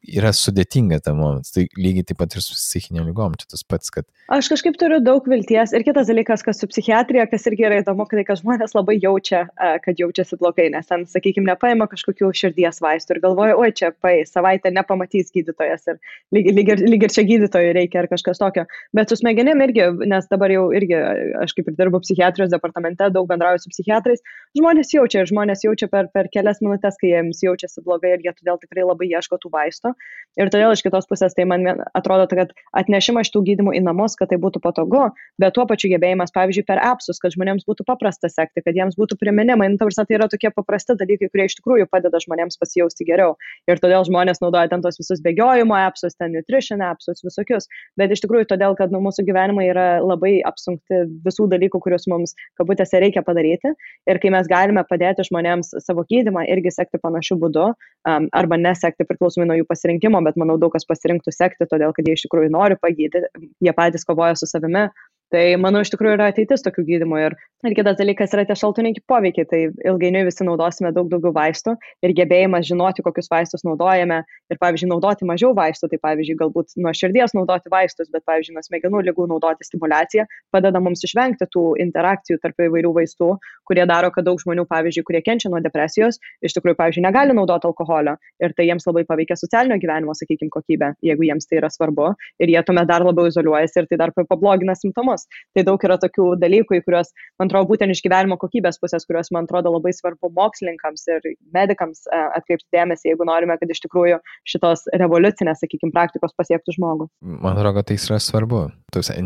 yra sudėtinga tam momentas, tai lygiai taip pat ir su psichinėm lygom, čia tas pats, kad... Aš kažkaip turiu daug vilties ir kitas dalykas, kas su psichiatrija, kas irgi yra įdomu, kad žmonės labai jaučia, kad jaučiasi blogai, nes ten, sakykime, nepaima kažkokių širdies vaistų ir galvoja, oi, čia savaitę nepamatys gydytojas ir lyg ir čia gydytojui reikia ar kažkas tokio, bet su smegenim irgi, nes dabar jau irgi, aš kaip ir dirbu psichiatrijos departamente, daug bendrauju su psichiatrais, žmonės jaučia per kelias minutės, kai jiems jaučiasi blogai ir jie todėl tikrai labai ieško tų vaistų. Ir todėl iš kitos pusės tai man atrodo, kad atnešimas šitų gydymų į namus, kad tai būtų patogu, bet tuo pačiu gebėjimas, pavyzdžiui, per appsus, kad žmonėms būtų paprasta sekti, kad jiems būtų priminimai. Tai yra tokie paprasti dalykai, kurie iš tikrųjų padeda žmonėms pasijausti geriau. Ir todėl žmonės naudoja ten tos visus bėgiojimo appsus, ten nutrition appsus, visokius. Bet iš tikrųjų todėl, kad mūsų gyvenimai yra labai apsunkti visų dalykų, kuriuos mums kabutėse reikia padaryti. Ir kai mes galime padėti žmonėms savo gydymą irgi sekti panašiu būdu, arba nesekti priklausomai nuo jų pasirinkimo, bet manau daug kas pasirinktų sekti, todėl kad jie iš tikrųjų nori pagydyti, jie patys kovoja su savimi. Tai, manau, iš tikrųjų yra ateitis tokių gydymų. Ir kitas dalykas yra tie šalutiniai poveikiai. Tai ilgainiui visi naudosime daug daugiau vaistų ir gebėjimas žinoti, kokius vaistus naudojame. Ir, pavyzdžiui, naudoti mažiau vaistų. Tai, pavyzdžiui, galbūt nuo širdies naudoti vaistus, bet, pavyzdžiui, nuo smegenų ligų naudoti stimulaciją padeda mums išvengti tų interakcijų tarp įvairių vaistų, kurie daro, kad daug žmonių, pavyzdžiui, kurie kenčia nuo depresijos, iš tikrųjų, pavyzdžiui, negali naudoti alkoholio. Ir tai jiems labai paveikia socialinio gyvenimo, sakykime, kokybę, jeigu jiems tai yra svarbu. Ir jie tuomet dar labiau izoliuojasi ir tai dar pablogina simptomus. Tai daug yra tokių dalykų, į kuriuos, man atrodo, būtent iš gyvenimo kokybės pusės, kuriuos, man atrodo, labai svarbu mokslininkams ir medikams atkreipti dėmesį, jeigu norime, kad iš tikrųjų šitos revoliucinės, sakykime, praktikos pasiektų žmogų. Man atrodo, kad tai yra svarbu.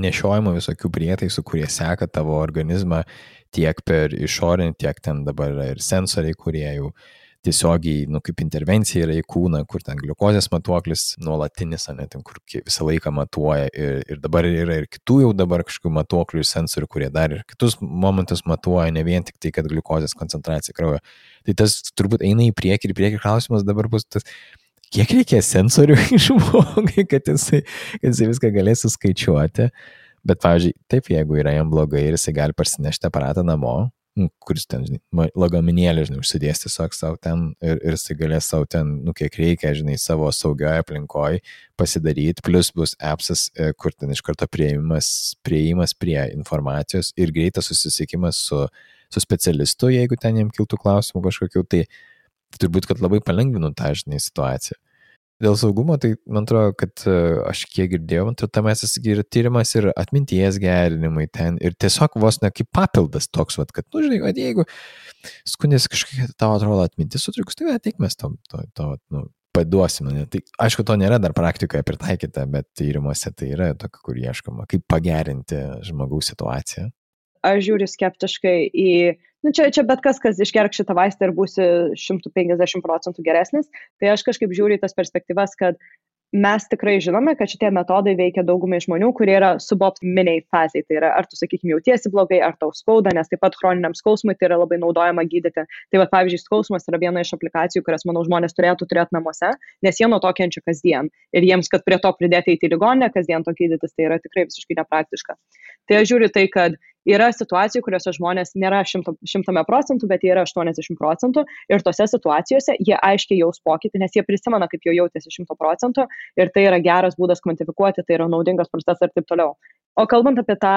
Nešiojimo visokių prietaisų, kurie seka tavo organizmą tiek per išorinį, tiek ten dabar yra ir sensoriai, kurie jau tiesiogiai, kaip intervencija yra į kūną, kur ten gliukozės matuoklis nuolatinis, ten, kur visą laiką matuoja ir dabar yra ir kitų jau dabar kažkokių matuoklių ir sensorių, kurie dar ir kitus momentus matuoja, ne vien tik tai, kad gliukozės koncentracija kraujo. Tai tas turbūt eina į priekį ir priekį klausimas dabar bus tas, kiek reikia sensorių žmogui, kad jisai viską galės suskaičiuoti. Bet, pavyzdžiui, taip, jeigu yra jam blogai ir jisai gali parsinešti aparatą namo, kuris ten, lagaminėlį, užsidės tiesiog savo ten ir jisai galės savo ten, kiek reikia, savo saugioje aplinkoje pasidaryti, plus bus appsas, kur ten iš karto prieimas prie informacijos ir greitas susisiekimas su specialistu, jeigu ten jam kiltų klausimų kažkokių, tai turbūt, kad labai palengvinu tą, situaciją. Dėl saugumo, tai man atrodo, kad aš kiek girdėjau, tame yra tyrimas ir atminties gerinimai ten ir tiesiog vos ne kaip papildas toks, kad, jeigu skundėsi kažkokia tavo atrodo atmintis sutrikus, tai ateik mes to paduosime. Tai aišku, to nėra dar praktikoje pritaikyta, bet tyrimuose tai yra tokia, kur ieškoma, kaip pagerinti žmogaus situaciją. Aš žiūriu skeptiškai į, čia bet kas išgerk šitą vaistą ir būsi 150% geresnis, tai aš kažkaip žiūriu į tas perspektyvas, kad mes tikrai žinome, kad šitie metodai veikia daugumai žmonių, kurie yra suboptiminiai fazai. Tai yra, ar tu, sakykime, jautiesi blogai, ar tau skauda, nes taip pat chroniniam skausmui tai yra labai naudojama gydyti. Tai va, pavyzdžiui, skausmas yra viena iš aplikacijų, kurias, manau, žmonės turėtų turėti namuose, nes jie nuo to kenčia kasdien. Ir jiems, kad prie to pridėti į ligoninę, kasdien to gydytis, tai yra tikrai visiškai nepraktiška. Tai aš žiūriu tai, kad yra situacijų, kuriuose žmonės nėra 100%, bet jie yra 80%. Ir tose situacijose jie aiškiai jaus pokytį, nes jie prisimena, kaip jau jautėsi 100%. Ir tai yra geras būdas kvantifikuoti, tai yra naudingas procesas ir taip toliau. O kalbant apie tą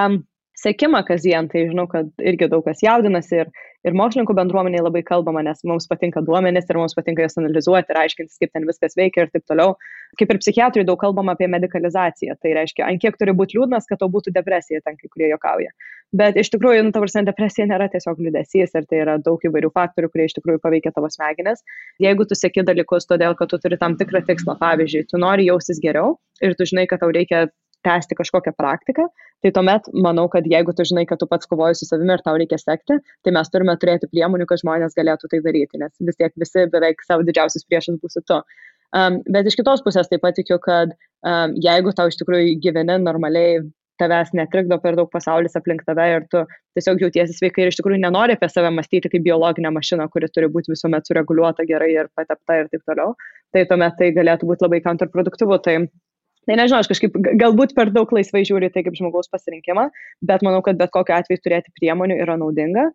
sekimą kasdien, tai žinau, kad irgi daug kas jaudinasi ir mokslininkų bendruomeniai labai kalbama, nes mums patinka duomenys ir mums patinka jas analizuoti ir aiškintis, kaip ten viskas veikia ir taip toliau. Kaip ir psichiatrai daug kalbama apie medikalizaciją, tai reiškia, ant kiek turi būti liūdnas, kad tau būtų depresija, ten kai kurie juokauja. Bet iš tikrųjų, depresija nėra tiesiog liūdesys ir tai yra daug įvairių faktorių, kurie iš tikrųjų paveikia tavo smegenis. Jeigu tu seki dalykus todėl, kad tu turi tam tikrą tikslą, pavyzdžiui, tu nori jaustis geriau ir tu žinai, kad tau reikia tęsti kažkokią praktiką, tai tuomet manau, kad jeigu tu žinai, kad tu pats kovoji su savimi ir tau reikia sekti, tai mes turime turėti priemonių, kad žmonės galėtų tai daryti, nes vis tiek visi beveik savo didžiausias priešas būsi tu. Bet iš kitos pusės taip pat tikiu, kad jeigu tau iš tikrųjų gyveni normaliai, tavęs netrikdo per daug pasaulis aplink tave ir tu tiesiog jautiesi sveikai ir iš tikrųjų nenori apie save mąstyti kaip biologinę mašiną, kuri turi būti visuomet sureguliuota gerai ir patepta ir taip toliau, tai tuomet tai galėtų būti labai kontraproduktyvu. Tai nežinau, aš kažkaip galbūt per daug laisvai žiūriu tai kaip žmogaus pasirinkimą, bet manau, kad bet kokiu atveju turėti priemonių yra naudinga.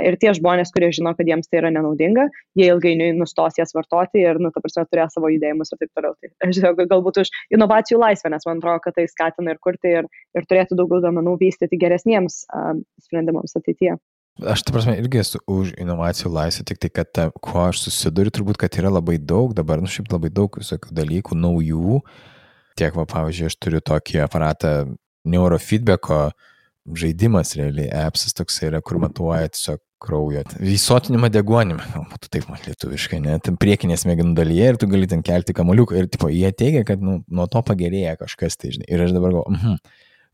Ir tie žmonės, kurie žino, kad jiems tai yra nenaudinga, jie ilgainiui nustos jas vartoti ir, turės savo judėjimus ir taip toliau. Tai aš žinau, galbūt už inovacijų laisvę, nes man atrodo, kad tai skatina ir kurti ir turėtų daugiau duomenų vystyti geresniems sprendimams ateityje. Aš, irgi esu už inovacijų laisvę, tik tai, kad kuo aš susiduriu, turbūt, kad yra labai daug dabar, šiaip labai daug visokių dalykų, naujų. Tiek, pavyzdžiui, aš turiu tokį aparatą neurofeedbacko žaidimas, realiai, appsas toksai yra, kur matuoja tiesiog kraujo. Įsotinimą deguonimą, būtų taip mat lietuviškai, ne, ten priekinės smegenų dalyje ir tu gali ten kelti kamuoliuką ir jie teigia, kad nuo to pagerėja kažkas, tai žinai. Ir aš dabar galvoju,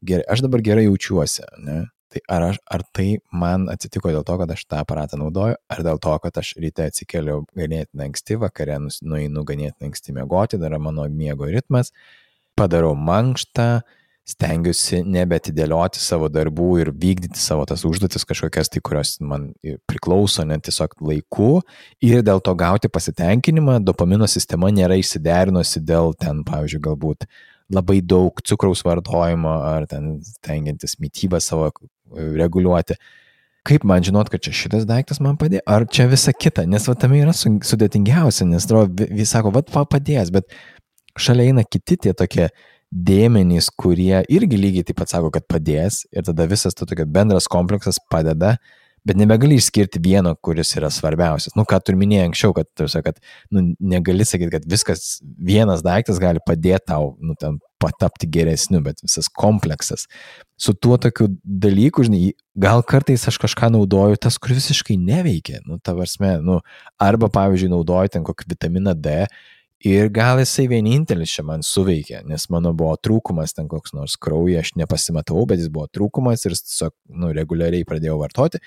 gerai, aš dabar gerai jaučiuosi, ne. Tai ar tai man atsitiko dėl to, kad aš tą aparatą naudoju, ar dėl to, kad aš ryte atsikeliu ganėtinai anksti, vakare nueinu ganėtinai anksti miegoti, dar mano miego ritmas, padarau mankštą, stengiuosi nebeatidėlioti savo darbų ir vykdyti savo tas užduotis kažkokias, tai kurios man priklauso net tiesiog laiku ir dėl to gauti pasitenkinimą, dopamino sistema nėra išsiderinusi dėl ten, pavyzdžiui, galbūt labai daug cukraus vartojimo ar ten stengiantis mitybą savo reguliuoti. Kaip man žinot, kad čia šitas daiktas man padėjo, ar čia visa kita, nes tame yra sudėtingiausia, nes vis sako, padės, bet šalia eina kiti tie tokie dėmenys, kurie irgi lygiai taip pat sako, kad padės ir tada visas tokia bendras kompleksas padeda, bet nebegali išskirti vieno, kuris yra svarbiausias. Ką tu ir minėjai anksčiau, kad negali sakyti, kad viskas, vienas daiktas gali padėti tau, ten patapti geresniu, bet visas kompleksas. Su tuo tokiu dalyku, žinai, gal kartais aš kažką naudoju tas, kur visiškai neveikia, arba, pavyzdžiui, naudoju ten kokį vitaminą D, ir gal jisai vienintelis čia man suveikė, nes mano buvo trūkumas ten koks nors kraujy, aš nepasimatau, bet jis buvo trūkumas ir tiesiog reguliariai pradėjau vartoti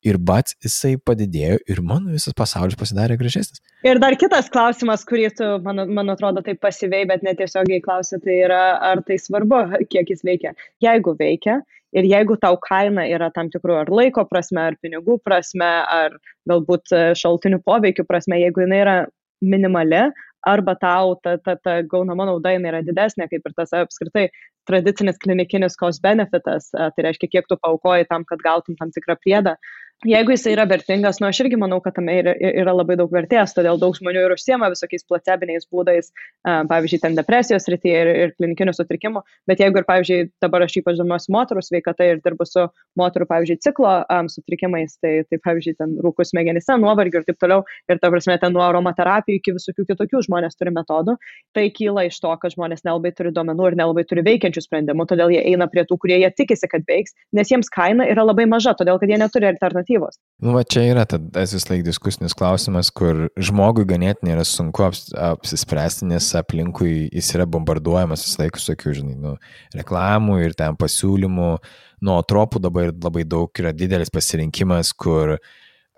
ir jisai padidėjo ir mano visas pasaulis pasidarė gražesnis. Ir dar kitas klausimas, kurį tu, man atrodo, taip pasyviai, bet netiesiogiai klausi, tai yra, ar tai svarbu, kiek jis veikia. Jeigu veikia ir jeigu tau kaina yra tam tikrų ar laiko prasme, ar pinigų prasme, ar galbūt šaltinių poveikių prasme, jeigu jinai yra minimali, arba tau ta gaunama nauda yra didesnė, kaip ir tas apskritai tradicinis klinikinis cost benefitas, tai reiškia, kiek tu paaukoji tam, kad gautum tam tikrą priedą. Jeigu jis yra vertingas, aš irgi manau, kad tame yra labai daug vertės, todėl daug žmonių ir užsiema visokiais placebiniais būdais, pavyzdžiui, ten depresijos srityje ir klinikinių sutrikimų, bet jeigu ir, pavyzdžiui, dabar aš ypač domiuosi moterų sveikata ir dirbu su moterų, pavyzdžiui, ciklo sutrikimais, tai pavyzdžiui, ten rūkų smegenyse, nuovargių ir taip toliau, ir ta prasme, ten nuo aromaterapijų iki visokių kitokių žmonės turi metodų, tai kyla iš to, kad žmonės nelabai turi duomenų ir nelabai turi veikiančių sprendimų, todėl jie eina prie tų, kurie jie tikisi, kad veiks, nes jiems kaina yra labai maža, todėl kad jie neturi alternatyvos. Čia yra tas vis laik diskusinis klausimas, kur žmogui ganėtinai yra sunku apsispręsti, nes aplinkui jis yra bombarduojamas vis laik visokių, žinai, reklamų ir ten pasiūlymų, nuo tropų dabar labai daug yra didelis pasirinkimas, kur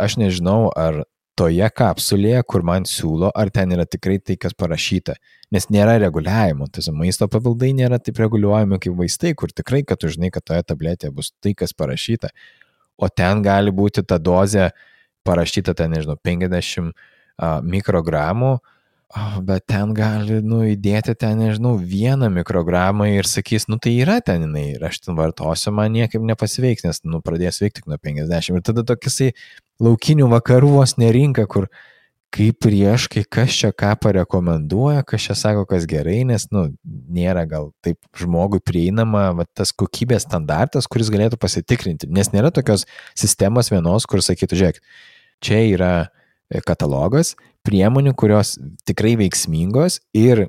aš nežinau, ar toje kapsulėje, kur man siūlo, ar ten yra tikrai tai, kas parašyta. Nes nėra reguliavimo, tas maisto papildai nėra taip reguliuojami kaip vaistai, kur tikrai, kad tu žinai, kad toje tabletėje bus tai, kas parašyta. O ten gali būti ta dozė parašyta, ten, nežinau, 50 mikrogramų, bet ten gali, įdėti ten, nežinau, 1 mikrogramą ir sakys, tai yra ten jinai, ir aš ten vartosiu, man niekaip nepasiveiks, nes, pradės veikti tik nuo 50. Ir tada tokiasai laukinių vakarų vos nerinka, kur kaip prieš, kai kas čia ką parekomenduoja, kas čia sako, kas gerai, nes, nėra gal taip žmogui prieinama tas kokybės standartas, kuris galėtų pasitikrinti, nes nėra tokios sistemos vienos, kur sakytų, žiūrėk, čia yra katalogas priemonių, kurios tikrai veiksmingos ir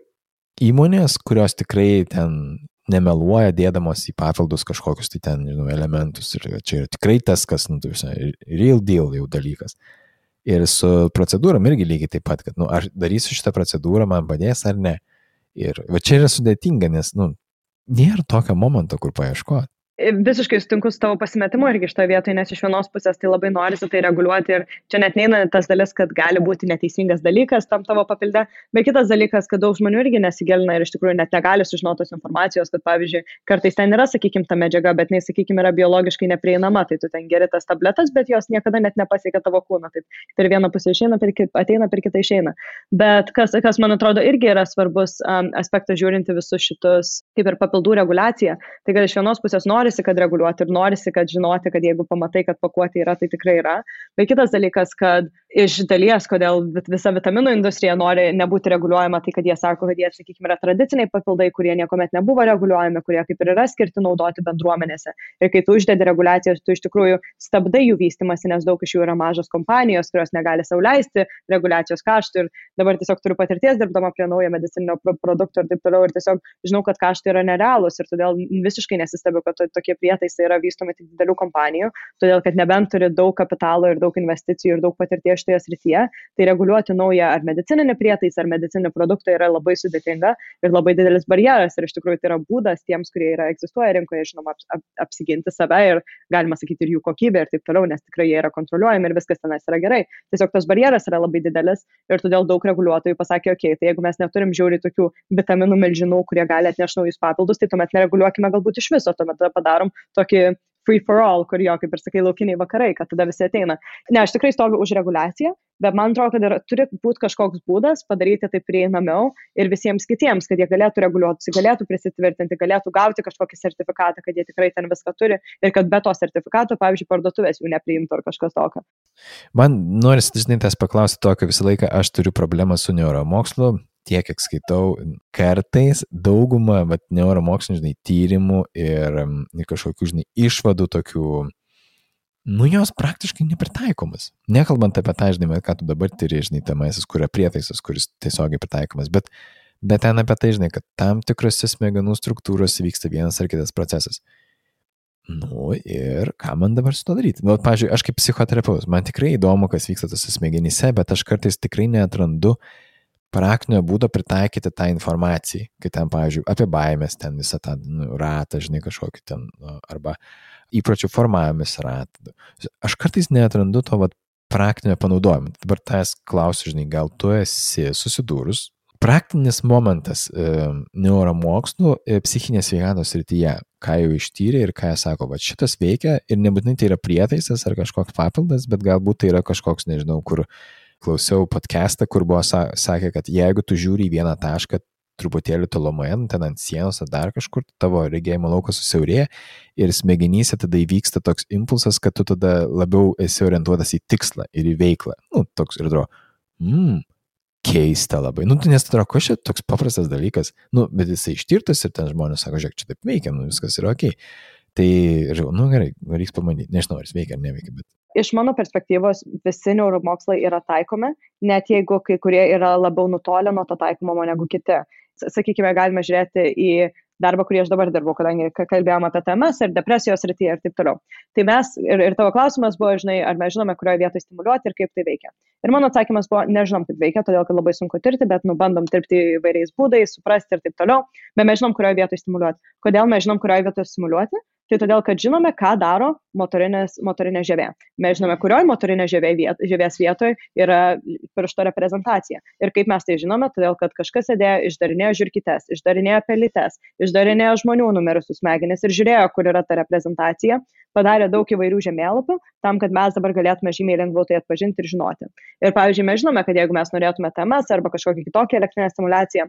įmonės, kurios tikrai ten nemeluoja dėdamos į papildus kažkokius tai ten, elementus. Ir čia yra tikrai tas, kas, real deal jau dalykas. Ir su procedūram irgi lygiai taip pat, kad, ar darysiu šitą procedūrą, man padės ar ne. Ir va čia yra sudėtinga, nes, nėra tokio momento, kur paieškoti. Visiškai sutinku su tavo pasimetimu irgi šitoje vietoje, nes iš vienos pusės tai labai norisi tai reguliuoti ir čia net neina tas dalis, kad gali būti neteisingas dalykas tam tavo papilde, bet kitas dalykas, kad daug žmonių irgi nesigilina ir iš tikrųjų net negali sužinoti tos informacijos, kad pavyzdžiui, kartais ten yra, sakykime, ta medžiaga, bet jinai, sakykime, yra biologiškai neprieinama, tai tu ten geri tas tabletas, bet jos niekada net nepasiekia tavo kūną, taip per vieną pusę išeina, ateina, per kitą išeina. Bet kas man atrodo irgi yra svarbus aspektas žiūrinti visus šitus, kaip ir papildų reguliaciją, tai kad iš vienos pusės norisi, kad reguliuoti ir norisi, kad žinoti, kad jeigu pamatai, kad pakuotė yra, tai tikrai yra. Bet kitas dalykas, kad iš dalies, kodėl visa vitaminų industrija nori nebūti reguliuojama, tai kad jie sako, kad jie, sakykime, yra tradiciniai papildai, kurie niekuomet nebuvo reguliuojami, kurie kaip ir yra skirti naudoti bendruomenėse. Ir kai tu uždedi reguliacijas, tu iš tikrųjų stabdai jų vystimąsi, nes daug iš jų yra mažos kompanijos, kurios negali sau leisti reguliacijos kaštų. Ir dabar tiesiog turiu patirties dirbdama prie naujo medicininio produkto ir taip toliau. Ir tiesiog žinau, kad kaštai yra nerealūs ir todėl visiškai nesistebiu, kad tokie prietaisai yra vystomi tik didelių kompanijų, todėl kad nebent turi daug kapitalo ir daug investicijų ir daug patirties šitoje srityje, tai reguliuoti naują ar medicininį prietaisą ar medicininį produktą yra labai sudėtinga ir labai didelis barjeras ir iš tikrųjų tai yra būdas tiems, kurie egzistuoja rinkoje, žinoma, apsiginti save ir galima sakyti ir jų kokybę ir taip toliau, nes tikrai jie yra kontroliuojami ir viskas tenais yra gerai. Tiesiog tas barjeras yra labai didelis ir todėl daug reguliuotojų pasakė, okei, tai jeigu mes neturim žiauriai tokių vitaminų milžinų, kurie gali atnešti naujus papildus, tai tuomet nereguliuokime galbūt iš viso, tuomet padarom tokį free for all, kur jo, kaip ir sakai, laukiniai vakarai, kad tada visi ateina. Ne, aš tikrai stoviu už reguliaciją, bet man atrodo, kad turi būti kažkoks būdas padaryti tai prieinamiau ir visiems kitiems, kad jie galėtų reguliuoti, galėtų prisitvirtinti, galėtų gauti kažkokį sertifikatą, kad jie tikrai ten viską turi ir kad be to sertifikato, pavyzdžiui, parduotuvės jų nepriimtų ar kažkas tokio. Man norisi, žinai, tas paklausti tokio visą laiką, aš turiu problemą su neuromokslu. Tiek, kiek skaitau, kartais dauguma neuromokslinių, žinai, tyrimų ir kažkokių, žinai, išvadų tokių, jos praktiškai nepritaikomas. Nekalbant apie tą, žinai, ką tu dabar tiri, žinai, temasis, kurio prietaisas, kuris tiesiogiai pritaikomas, bet ten apie tai, žinai, kad tam tikrose smegenų struktūros vyksta vienas ar kitas procesas. Ir ką man dabar su to daryti? Pavyzdžiui, aš kaip psichoterapeutas, man tikrai įdomu, kas vyksta tose smegenyse, bet aš kartais tikrai neatrandu praktinio būdo pritaikyti tą informaciją, kai ten, pavyzdžiui, apie baimės, ten visą tą ratą, žinai, kažkokį ten, arba įpročių formavimis ratą. Aš kartais neatrandu to praktinio panaudojimo. Dabar tas klausiu, žinai, gal tu esi susidūrus. Praktinis momentas neuromokslų psichinės sveikatos srityje, ką jau ištyrė ir ką jie sako, šitas veikia ir nebūtinai tai yra prietaisas ar kažkoks papildas, bet galbūt tai yra kažkoks, nežinau, kur klausiau podcastą, kur buvo sakė, kad jeigu tu žiūri į vieną tašką truputėlį tolumoje, ten ant sienos ar dar kažkur, tavo regėjimo laukas susiaurėja ir smegenyse tada įvyksta toks impulsas, kad tu tada labiau esi orientuotas į tikslą ir į veiklą. Toks ir atrodo, keista labai. Nes atrodo, ko čia toks paprastas dalykas, bet jisai ištirtas ir ten žmonės sako, žiūrėk, čia taip veikia, viskas yra okei. Tai, gerai, reiks pamanyti, nežinau, ar jis veikia ar neveikia, bet iš mano perspektyvos visi neuromokslai yra taikomi, net jeigu kai kurie yra labiau nutolę nuo to taikomo negu kiti. Sakykime, galime žiūrėti į darbą, kurį aš dabar dirbu, kadangi kalbėjome apie TMS ir depresijos srityje ir taip toliau. Tai mes, ir tavo klausimas buvo, žinai, ar mes žinome, kurioje vietoje stimuliuoti ir kaip tai veikia. Ir mano atsakymas buvo, nežinom, kaip veikia, todėl kad labai sunku tirti, bet bandom tirti įvairiais būdais, suprasti ir taip toliau, bet mes žinom, kurioje vietoje stimuliuoti. Kodėl mes žinom, kurioje vietoje stimuliuoti? Tai todėl, kad žinome, ką daro motorinė žievė. Mes žinome, kurioje motorinė žievės vietoje yra piršto reprezentacija. Ir kaip mes tai žinome, todėl, kad kažkas sėdėjo, išdarinėjo žiurkytes, išdarinėjo pelytes, išdarinėjo žmonių numirusius smegenis ir žiūrėjo, kur yra ta reprezentacija, padarė daug įvairių žemėlapių, tam, kad mes dabar galėtume žymiai lengviau tai atpažinti ir žinoti. Ir pavyzdžiui, mes žinome, kad jeigu mes norėtume TMS arba kažkokią kitokią elektrinę stimulaciją,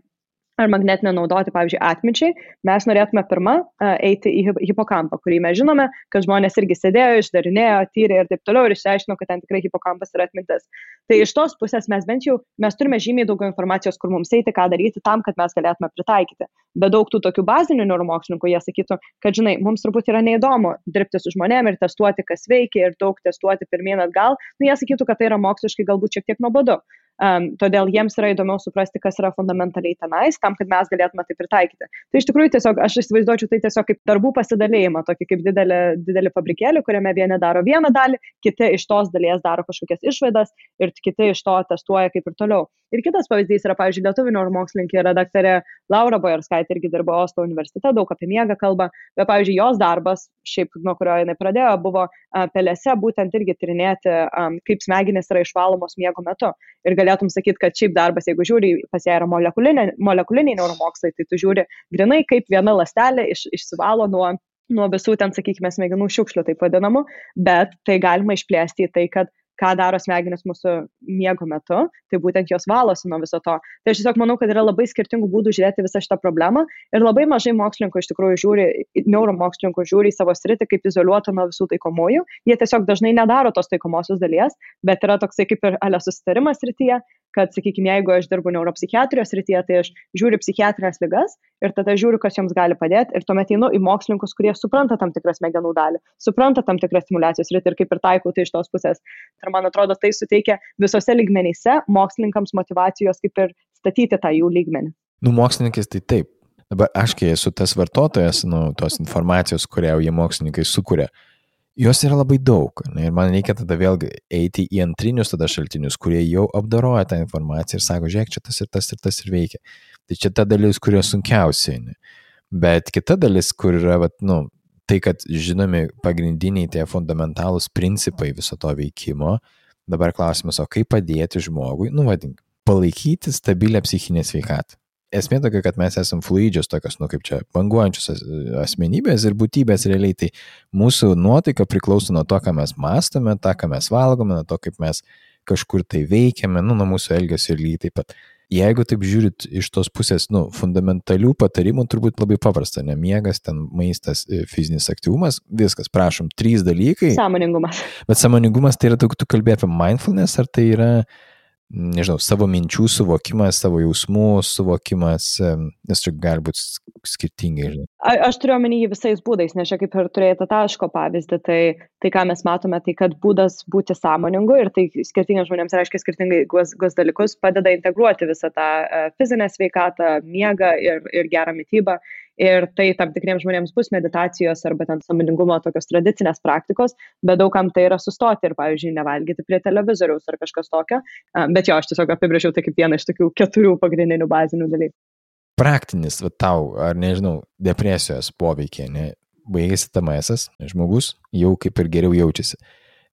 ar magnetinę naudoti, pavyzdžiui, atminčiai, mes norėtume pirmą eiti į hipokampą, kurį mes žinome, kad žmonės irgi sėdėjo, išdarinėjo, tyrė ir taip toliau ir išsiaiškino, kad ten tikrai hipokampas yra atmintis. Tai iš tos pusės mes turime žymiai daugiau informacijos, kur mums eiti, ką daryti tam, kad mes galėtume pritaikyti. Bet daug tų tokių bazinių neuromokslininkų, jie sakytų, kad, žinai, mums turbūt yra neįdomu dirbti su žmonėm ir testuoti, kas veikia ir daug testuoti pirmyn atgal. Nu, jie sakytų, kad tai yra moksliškai galbūt šiek tiek nuobodu. Todėl jiems yra įdomiau suprasti, kas yra fundamentaliai tenais, tam, kad mes galėtume tai pritaikyti. Tai iš tikrųjų tiesiog, aš įsivaizduočiau tai tiesiog kaip darbų pasidalėjimą, tokį kaip didelį fabrikėlį, kuriame vieni daro vieną dalį, kiti iš tos dalies daro kažkokias išvadas ir kiti iš to testuoja kaip ir toliau. Ir kitas pavyzdys yra, pavyzdžiui, lietuvių neuromokslininkė redaktorė Laura Bojarskaitė irgi dirbo Oslo universitete, daug apie miegą kalba, bet, pavyzdžiui, jos darbas, šiaip nuo kurio jinai pradėjo, buvo pelėse būtent irgi tyrinėti, kaip smegenys yra išvalomos miego metu. Ir galėtum sakyti, kad šiaip darbas, jeigu žiūri, pas ją yra molekuliniai neuromokslai, tai tu žiūri grinai, kaip viena ląstelė išsivalo nuo visų ten, sakykime, smegenų šiukšlių, taip vadinamų, bet tai galima išplėsti į tai, kad ką daro smegenys mūsų miego metu, tai būtent jos valosi nuo viso to. Tai aš tiesiog manau, kad yra labai skirtingų būdų žiūrėti visą šitą problemą ir labai mažai mokslininkų iš tikrųjų neuromokslininkų žiūri į savo sritį kaip izoliuotą nuo visų taikomųjų. Jie tiesiog dažnai nedaro tos taikomosios dalies, bet yra toksai kaip ir susitarimas srityje, kad, sakykime, jeigu aš dirbu neuropsichiatrijos srityje, tai aš žiūriu psichiatrinės ligas ir tada žiūriu, kas joms gali padėti ir tuomet einu į mokslininkus, kurie supranta tam tikrą smegenų dalį, supranta tam tikrą stimulacijos sritį ir kaip ir taikau tai iš tos pusės. Ir man atrodo, tai suteikia visose lygmenyse mokslininkams motyvacijos kaip ir statyti tą jų lygmenį. Mokslininkais tai taip. Dabar aš, kai esu tas vartotojas, tos informacijos, kurią jie mokslininkai sukuria, jos yra labai daug. Ir man reikia tada vėlgi eiti į antrinius tada šaltinius, kurie jau apdoroja tą informaciją ir sako, žiūrėk, čia tas ir tas ir tas ir veikia. Tai čia ta dalis, kurio sunkiausiai. Bet kita dalis, kur yra, tai, kad žinomi pagrindiniai tie fundamentalūs principai viso to veikimo, dabar klausimas, o kaip padėti žmogui, palaikyti stabilę psichinę sveikatą. Esmė tokia, kad mes esam fluidžios tokios, kaip čia, banguojančios asmenybės ir būtybės realiai, tai mūsų nuotaika priklauso nuo to, ką mes mąstome, tą, ką mes valgome, nuo to, kaip mes kažkur tai veikiame, nuo mūsų elgesio ir lygiai taip pat. Jeigu taip žiūrit iš tos pusės, fundamentalių patarimų turbūt labai paprasta, miegas, ten maistas, fizinis aktyvumas, viskas, prašom, 3 dalykai. Sąmoningumas. Bet sąmoningumas tai yra, tu kalbėjai apie mindfulness, ar tai yra savo minčių suvokimas, savo jausmų suvokimas, nes čia gali būti skirtingai. Aš turiu omeny jį visais būdais, nes čia kaip ir turėjai tą taško pavyzdį, tai ką mes matome, tai kad būdas būti sąmoningu ir tai skirtingiems žmonėms reiškia skirtingai dalykus, padeda integruoti visą tą fizinę sveikatą, miegą ir gerą mitybą. Ir tai tam tikriems žmonėms bus meditacijos arba ten sąmoningumo tokios tradicinės praktikos, bet daugam tai yra sustoti ir, pavyzdžiui, nevalgyti prie televizoriaus ar kažkas tokio. Bet jo, aš tiesiog apibrėžiau tai kaip vieną iš tokių 4 pagrindinių bazinių dalykų. Praktinis, tau, ar nežinau, depresijos poveikiai, baigėsi TMS, žmogus jau kaip ir geriau jaučiasi.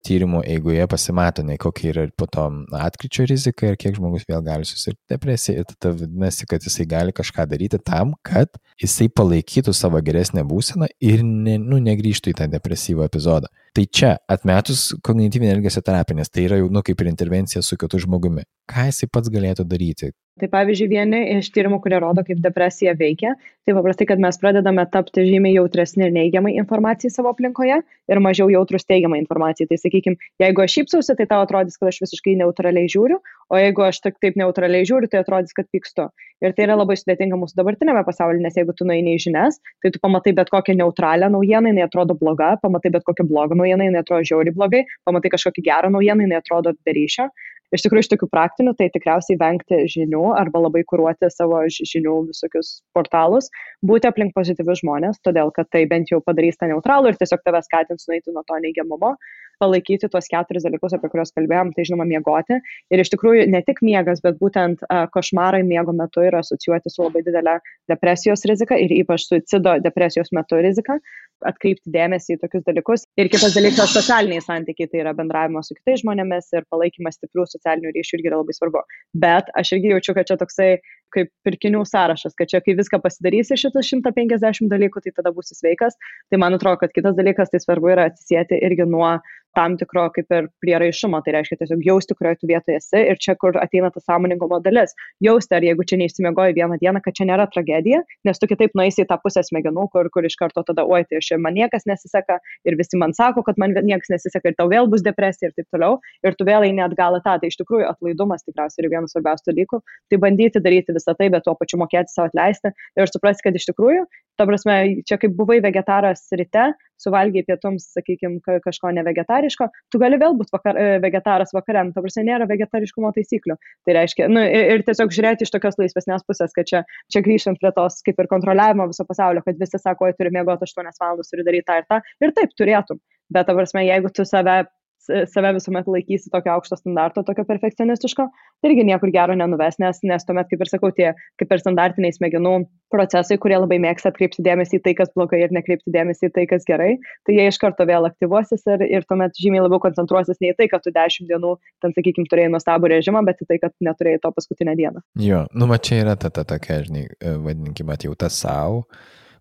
Tyrimo eigoje pasimato, kokia yra po to atkryčio rizika ir kiek žmogus vėl gali susirgti depresiją. Ir tada vadinasi, kad jisai gali kažką daryti tam, kad jisai palaikytų savo geresnę būseną ir negrįžtų į tą depresyvų epizodą. Tai čia atmetus kognityvinę elgesio terapiją, nes tai yra jau kaip ir intervencija su kitu žmogumi. Ką jisai pats galėtų daryti? Tai pavyzdžiui, vieni iš tyrimų, kurie rodo, kaip depresija veikia, tai paprastai, kad mes pradedame tapti žymiai jautresni neigiamai informacijai savo aplinkoje ir mažiau jautrus teigiamai informacijai. Tai sakykime, jeigu aš šypsausi, tai tau atrodys, kad aš visiškai neutraliai žiūriu, o jeigu aš taip neutraliai žiūriu, tai atrodys, kad pykstu. Ir tai yra labai sudėtinga mūsų dabartinėme pasaulyje, nes jeigu tu nueini į žinias, tai tu pamatai bet kokią neutralią naujieną, jinai atrodo bloga, pamatai bet kokią blogą naujieną, jinai atrodo žiauriai blogai, pamatai kažkokį gerą naujieną, jinai atrodo be ryšio. iš tikrųjų iš tokių praktinių, tai tikriausiai vengti žinių arba labai kuruoti savo žinių visokius portalus, būti aplink pozityvius žmonės, todėl kad tai bent jau padarys tą neutralų ir tiesiog tave skatins nueiti nuo to neigiamumo, palaikyti tuos 4 dalykus, apie kuriuos kalbėjom, tai žinoma miegoti. Ir iš tikrųjų ne tik miegas, bet būtent košmarai miego metu yra asocijuoti su labai didelė depresijos rizika ir ypač suicido depresijos metu rizika. Atkreipti dėmesį į tokius dalykus. Ir kitas dalykas - socialiniai santykiai, tai yra bendravimas su kitais žmonėmis ir palaikymas stiprių socialinių ryšių irgi yra labai svarbu. Bet aš irgi jaučiu, kad čia toksai kaip pirkinių sąrašas, kad čia kai viską pasidarysi šitas 150 dalykų, tai tada būsi sveikas. Tai man atrodo, kad kitas dalykas, tai svarbu yra atsisieti irgi nuo tam tikro kaip ir prieraišumo, tai reiškia tiesiog jausti, kurioje tu vietoje esi ir čia, kur ateina ta sąmoningumo dalis. Jausti, ar jeigu čia neišsimiegoji vieną dieną, kad čia nėra tragedija, nes tu kitaip nueisi į tą pusę smegenų, kur iš karto tada, oi, tai aš man niekas nesiseka ir visi man sako, kad man niekas nesiseka ir tau vėl bus depresija ir taip toliau, ir tu vėl eini atgal į tą. Tai iš tikrųjų atlaidumas tikriausiai yra vienas svarbiausių dalykų, tai bandyti daryti visą tai, bet tuo pačiu mokėti savo atleisti ir suprasti, kad iš tikrųjų, ta prasme, čia kaip buvai vegetaras ryte, suvalgiai pietums, sakykime, kažko nevegetariško, tu gali vėl būti vegetaras vakariam, ta prasme, nėra vegetariškumo taisyklių. Tai reiškia, ir tiesiog žiūrėti iš tokios laisvesnės pusės, kad čia grįžtant prie tos kaip ir kontroliavimo viso pasaulio, kad visi sako, turi miegoti 8 valandas, turi daryti tą ir tą, ir taip turėtum. Bet, ta prasme, jeigu tu save visuomet laikysi tokio aukšto standarto, tokio perfekcionistiško, tai irgi niekur gero nenuves, nes tuomet, kaip ir sakau, tie kaip ir standartiniai smegenų procesai, kurie labai mėgsta atkreipti dėmesį į tai, kas blogai ir nekreipti dėmesį į tai, kas gerai, tai jie iš karto vėl aktyvuosis ir tuomet žymiai labiau koncentruosis ne į tai, kad tu 10 dienų, ten, sakykime, turėjai nuostabų režimą, bet į tai, kad neturėjai to paskutinę dieną. Jo, va čia yra ta tokia, žinai, vadinkime, atjauta savo.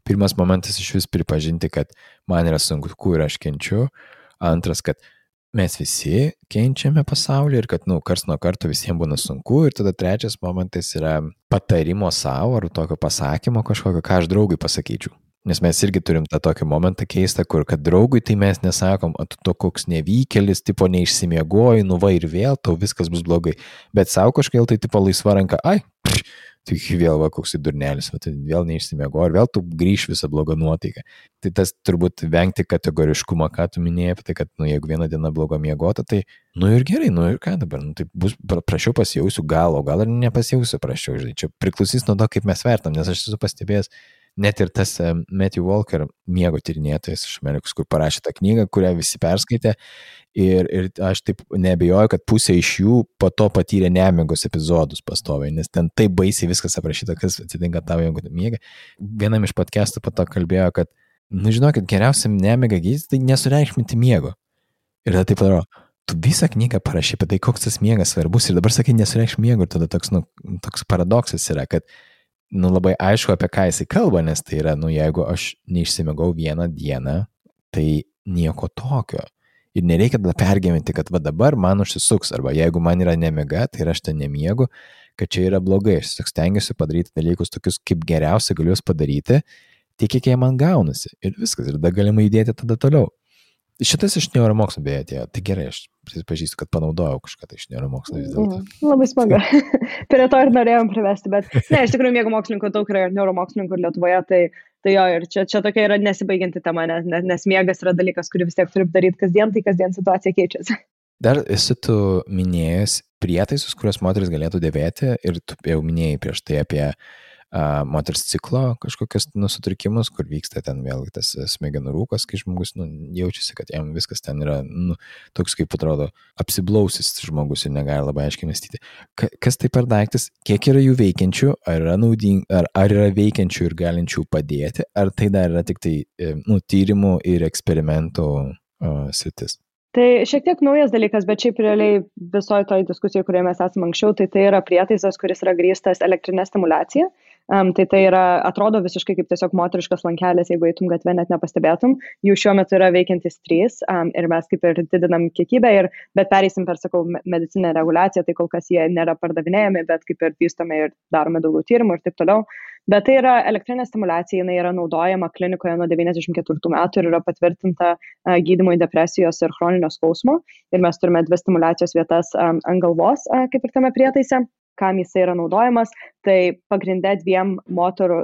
Pirmas momentas iš vis pripažinti, kad man yra sunku ir aš kenčiu. Antras, kad mes visi kenčiame pasaulį ir kad, kars nuo karto visiems būna sunku. Ir tada trečias momentas yra patarimo savo ar tokio pasakymo kažkokio, ką aš draugui pasakyčiau. Nes mes irgi turim tą tokį momentą keistą, kur kad draugui tai mes nesakom, tu to koks nevykėlis, tipo neišsimiegoji, va ir vėl, tau viskas bus blogai. Bet savo kažkaip tai tipo laisva ranka, tai vėl koks įdurnelis, tai vėl neišsimiegoji ir vėl tu grįš visą blogą nuotaiką. Tai tas turbūt vengti kategoriškumą, ką tu minėjai, tai kad, jeigu vieną dieną blogo miegota, tai, ir gerai, ir ką dabar, tai bus prašiau pasijausiu gal, o gal ir nepasijausiu prašiau, žinai, čia priklausys nuo to, kaip mes vertam, nes aš esu pastebėjęs, net ir tas Matthew Walker, miego tyrinėtojas iš Amerikos, kur parašė tą knygą, kurią visi perskaitė, ir aš taip neabejoju, kad pusė iš jų po to patyrė nemigos epizodus pastoviai, nes ten taip baisiai viskas aprašyta, kas atsitinka tavo, jeigu miega. Vienam iš podcastų po to kalbėjo, kad, žinokit, geriausiam nemigą gydyti, tai nesureikšminti miego. Ir tada taip padaro, tu visą knygą parašy apie tai, koks tas miegas svarbus, ir dabar sakai, nesureikšminti miego, ir tada toks paradoksas yra, kad labai aišku, apie ką jisai kalba, nes tai yra, jeigu aš neišsimiegau vieną dieną, tai nieko tokio. Ir nereikia tada pergyventi, kad dabar man užsisuks, arba jeigu man yra nemiega, tai aš ten nemiegu, kad čia yra blogai. Aš stengiuosi padaryti dalykus tokius, kaip geriausia galiu padaryti, tiek kiek jie man gaunasi. Ir viskas, ir tada galima judėti tada toliau. Šitas iš neuromokslo beje atėjo. Tai gerai, aš prisipažįstu, kad panaudojau kažką iš neuromokslo vis dėlto. Labai smagu. Prie to ir norėjom privesti, bet ne, iš tikrųjų miego mokslininkų daug yra ir neuromokslininkų Lietuvoje, tai jo, ir čia tokia yra nesibaigianti tema, nes miegas yra dalykas, kurį vis tiek turi daryti kasdien, tai kasdien situacija keičiasi. Dar esi tu minėjęs prietaisus, kuriuos moteris galėtų dėvėti, ir tu jau minėjai prieš tai apie moters ciklo kažkokius sutrikimus, kur vyksta ten vėl tas smegenų rūkas, kai žmogus jaučiasi, kad jam viskas ten yra toks, kaip atrodo, apsiblausis žmogus ir negali labai aiškiai mąstyti. Kas tai per daiktas, kiek yra jų veikiančių, ar yra veikiančių ir galinčių padėti, ar tai dar yra tik tai tyrimų ir eksperimentų sritis? Tai šiek tiek naujas dalykas, bet šiaip realiai visoje toj diskusijoje, kurioje mes esame anksčiau, tai yra prietaisas, kuris yra grįstas elektrinė stimulacija. Tai yra, atrodo visiškai kaip tiesiog moteriškas lankelis, jeigu eitum gatvę net nepastebėtum. Jų šiuo metu yra veikiantis 3 ir mes kaip ir didinam kiekybę, bet pereisim per, sakau, medicinę reguliaciją, tai kol kas jie nėra pardavinėjami, bet kaip ir vystome ir darome daugiau tyrimų ir taip toliau. Bet tai yra elektrinė stimulacija, jinai yra naudojama klinikoje nuo 94 metų ir yra patvirtinta gydymui depresijos ir chroninio skausmo. Ir mes turime 2 stimulacijos vietas ant galvos, kaip ir tame prietaise. Kam jisai yra naudojamas, tai pagrindė 2 moterų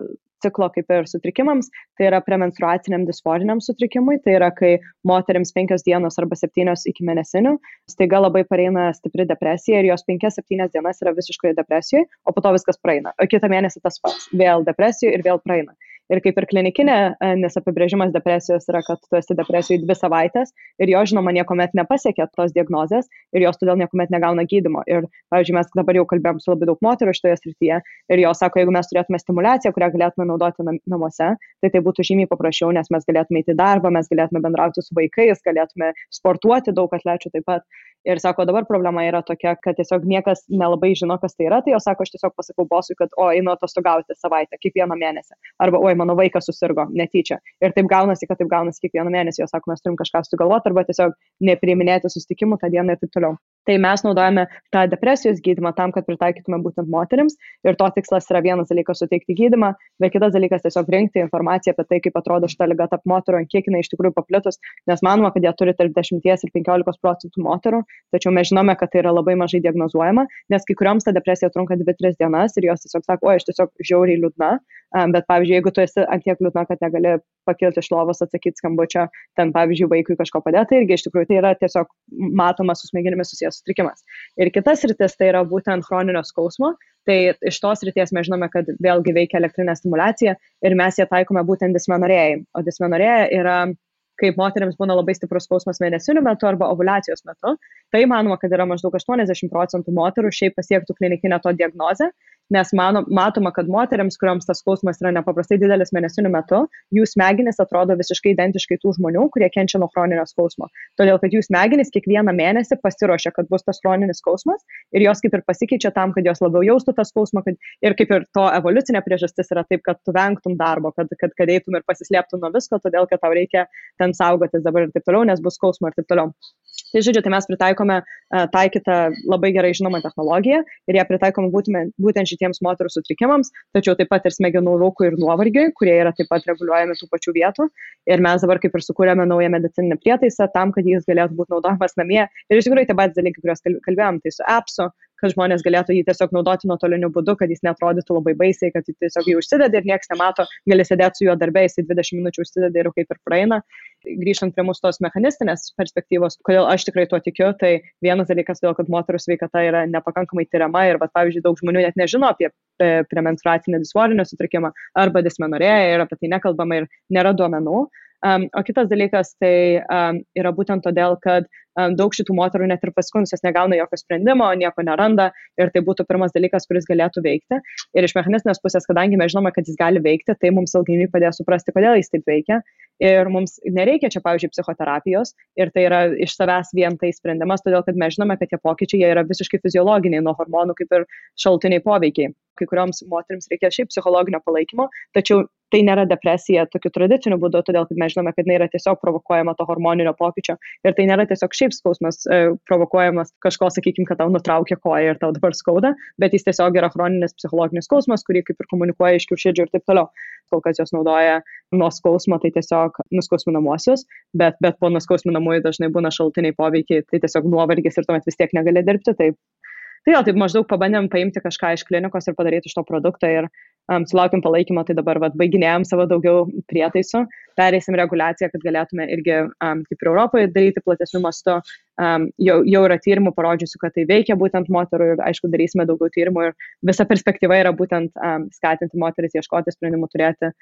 ciklo kaip ir sutrikimams, tai yra premenstruaciniam disforiniam sutrikimui, tai yra kai moterims 5 dienos arba 7 iki mėnesinių, staiga labai pareina stipri depresija ir jos 5-7 dienas yra visiškai depresijoje, o po to viskas praeina. O kitą mėnesį tas pats, vėl depresijoje ir vėl praeina. Ir kaip ir klinikinė, nes apibrėžimas depresijos yra, kad tu esi depresijoje 2 savaitės ir jo, žinoma, niekuomet nepasiekia tos diagnozės ir jos todėl niekuomet negauna gydymo. Ir, pavyzdžiui, mes dabar jau kalbėjom su labai daug moterų šitoje srityje ir jos sako, jeigu mes turėtume stimuliaciją, kurią galėtume naudoti namuose, tai būtų žymiai paprasčiau, nes mes galėtume eiti į darbą, mes galėtume bendrauti su vaikais, galėtume sportuoti, daug atlečių taip pat. Ir sako, dabar problema yra tokia, kad tiesiog niekas nelabai žino, kas tai yra, tai jos sako, aš tiesiog pasakau bosui, kad einu atostogauti savaitę, kiekvieną mėnesį. Arba, mano vaikas susirgo netyčia. Ir taip gaunasi kiekvieną mėnesį, jos sako, mes turim kažką sugalvoti, arba tiesiog nepriiminėti susitikimų tą dieną ir taip toliau. Tai mes naudojame tą depresijos gydymą tam, kad pritaikytume būtent moterims. Ir to tikslas yra vienas dalykas suteikti gydymą, bet kitas dalykas tiesiog rinkti informaciją apie tai, kaip atrodo šita liga tarp moterų, kiek jinai iš tikrųjų paplitus, nes manoma, kad jie turi tarp 10 ir 15% moterų, tačiau mes žinome, kad tai yra labai mažai diagnozuojama, nes kai kurioms ta depresija trunka 2-3 dienas ir jos tiesiog sako, aš tiesiog žiauriai liūdna, bet pavyzdžiui, jeigu tu esi ant tiek liūdna, kad negali pakilti iš lovos, atsakyti skambučio, ten pavyzdžiui, vaikui kažko padėti, irgi iš tikrųjų tai yra tiesiog matomas su smegenimis susijęs sutrikimas. Ir kitas rytis tai yra būtent chroninio skausmo, tai iš tos ryties mes žinome, kad vėlgi veikia elektrinė stimulacija ir mes ją taikome būtent dismenorėjai. O dismenorėja yra, kaip moteriams būna labai stiprus skausmas mėnesinių metu arba ovulacijos metu, tai manoma, kad yra maždaug 80% moterų šiaip pasiektų klinikinę to diagnozę, nes matoma, kad moteriams, kuriuoms tas skausmas yra nepaprastai didelis mėnesinių metu, jų smegenys atrodo visiškai identiškai tų žmonių, kurie kenčia nuo chroninio skausmo. Todėl, kad jų smegenys kiekvieną mėnesį pasiruošia, kad bus tas chroninis skausmas ir jos kaip ir pasikeičia tam, kad jos labiau jaustų tą skausmą ir kaip ir to evoliucinė priežastis yra taip, kad tu vengtum darbo, kad eitum ir pasislėptum nuo visko, todėl, kad tau reikia ten saugotis dabar ir taip toliau, nes bus skausmo ir taip toliau. Tai žodžiu, tai mes pritaikome taikytą labai gerai žinomą technologiją ir ją pritaikome būtent šitiems moterų sutrikimams, tačiau taip pat ir smegenų rūkui ir nuovargiui, kurie yra taip pat reguliuojami tų pačių vietų. Ir mes dabar kaip ir sukūrėme naują medicininį prietaisą tam, kad jis galėtų būti naudojamas namie. Ir iš tikrųjų tie patys dalykai, kuriuos kalbėjom, tai su appsu, kad žmonės galėtų jį tiesiog naudoti nuotoliniu būdu, kad jis neatrodytų labai baisiai, kad jis tiesiog jį užsideda ir niekas nemato, gali sėdėti su juo darbė, jis 20 minučių užsideda ir kaip ir praeina. Grįžtant prie mūsų tos mechanistinės perspektyvos, kodėl aš tikrai tuo tikiu, tai vienas dalykas, todėl, kad moterų sveikata yra nepakankamai tyriama ir, pavyzdžiui, daug žmonių net nežino apie premenstruacinį disforinį sutrikimą arba dismenorėją ir apie tai nekalbama ir nėra duomenų. O kitas dalykas tai yra būtent todėl, kad daug šitų moterų net ir paskundusios negauna jokio sprendimo, nieko neranda ir tai būtų pirmas dalykas, kuris galėtų veikti. Ir iš mechanistinės pusės, kadangi mes žinome, kad jis gali veikti, tai mums ilgainiui padėjo suprasti, kodėl jis taip veikia. Ir mums nereikia čia, pavyzdžiui, psichoterapijos ir tai yra iš savęs vien tai sprendimas, todėl kad mes žinome, kad tie pokyčiai jie yra visiškai fiziologiniai nuo hormonų kaip ir šalutiniai poveikiai. Kai kurioms moterims reikia šiaip psichologinio palaikymo, tačiau tai nėra depresija tokiu tradiciniu būdu, todėl kad mes žinome, kad jinai yra tiesiog provokuojama to hormoninio pokyčio ir tai nėra tiesiog šiaip skausmas provokuojamas kažko, sakykime, kad tau nutraukia koją ir tau dabar skauda, bet jis tiesiog yra chroninis psichologinis skausmas, kurį kaip ir komunikuoja iš kiaušidžių ir taip toliau. Kol kas jos naudoja nuo skausmo, tai tiesiog nuskausminamuosius, bet po nuskausminamųjų dažnai būna šalutiniai poveikiai, tai tiesiog nuovargis ir tuomet vis tiek negali dirbti. Tai jau taip maždaug pabandėm paimti kažką iš klinikos ir padaryti iš to produktą ir sulaukėm palaikymo, tai dabar baiginėjom savo daugiau prietaisų, pereisim reguliaciją, kad galėtume irgi kaip ir Europoje daryti platesnių mastų. Jau yra tyrimų parodžiusių, kad tai veikia būtent moterų ir aišku darysime daugiau tyrimų ir visa perspektyva yra būtent skatinti moteris ieškoti sprendimų turėti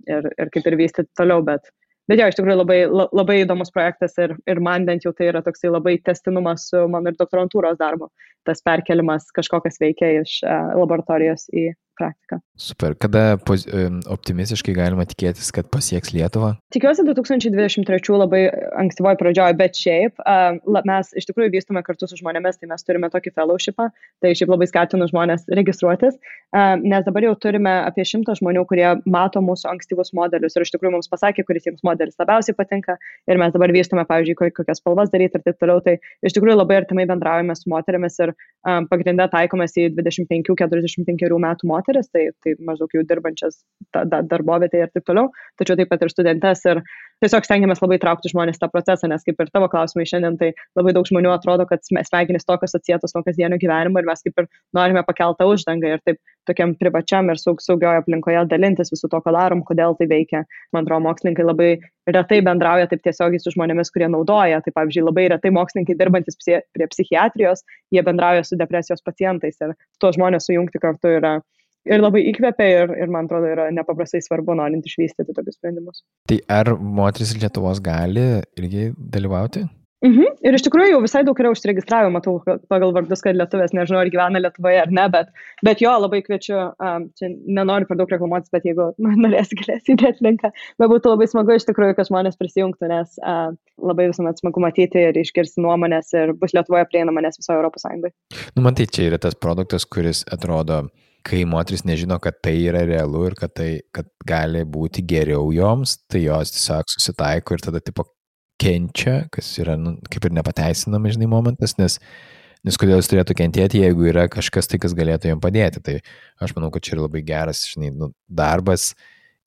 ir kaip ir vystyti toliau, bet jo, iš tikrųjų labai įdomus projektas ir man bent jau tai yra toksai labai tęstinumas su mano ir doktorantūros darbu, tas perkelimas kažko, kas veikia iš laboratorijos į praktiką. Super. Kada optimistiškai galima tikėtis, kad pasieks Lietuvą? Tikiuosi 2023 labai ankstyvoje pradžioje, bet šiaip mes iš tikrųjų vystome kartu su žmonėmis, tai mes turime tokį fellowshipą, tai šiaip labai skatinu žmonės registruotis, nes dabar jau turime apie 100 žmonių, kurie mato mūsų ankstyvus modelius ir iš tikrųjų mums pasakė, kuris jiems modelis labiausiai patinka ir mes dabar vystome, pavyzdžiui, kokias spalvas daryti ir taip toliau, tai iš tikrųjų labai artimai bendraujame su moterimis ir pagrinde taikomės į 25-45 metų moteris. moteris, tai maždaug jau dirbančias darbovietėje ir taip toliau, tačiau taip pat ir studentes ir tiesiog stengiamės labai traukti žmonės tą procesą, nes kaip ir tavo klausimai šiandien, tai labai daug žmonių atrodo, kad smegenys tokios atsietos nuo kasdienio gyvenimo ir mes kaip ir norime pakeltą uždangą ir taip tokiam privačiam ir saugioje aplinkoje dalintis visų to, ką darom, kodėl tai veikia. Man atrodo, mokslininkai labai retai bendrauja taip tiesiogiai su žmonėmis, kurie naudoja. Tai pavyzdžiui, labai retai mokslininkai dirbantis prie psichiatrijos, jie bendrauja su depresijos pacientais ir tuos žmonės sujungti kartu yra ir labai įkvepia ir man atrodo yra nepaprastai svarbu norint išvystyti tokius sprendimus. Tai ar moteris Lietuvos gali irgi dalyvauti? Ir iš tikrųjų jau visai daug yra užsiregistravę, matau pagal vardus, kad lietuvės, nežinau, ar gyvena Lietuvoje ar ne, bet jo, labai kviečiu, čia nenoriu per daug reklamuotis, bet jeigu norėsi, galėsi įdėti linką, bet būtų labai smagu iš tikrųjų, kad žmonės prisijungtų, nes labai visuomet smagu matyti ir išgirsti nuomonės ir bus Lietuvoje prieinama, nes visoje Europos Sąjungoje. Man tai čia yra tas produktas, kuris atrodo, kai moteris nežino, kad tai yra realu ir kad gali būti geriau joms, tai jos tiesiog susitaiko ir tada tipo kenčia, kas yra kaip ir nepateisinama, žinai, momentas, nes kodėl jis turėtų kentėti, jeigu yra kažkas tai, kas galėtų jam padėti. Tai aš manau, kad čia yra labai geras, žinai, darbas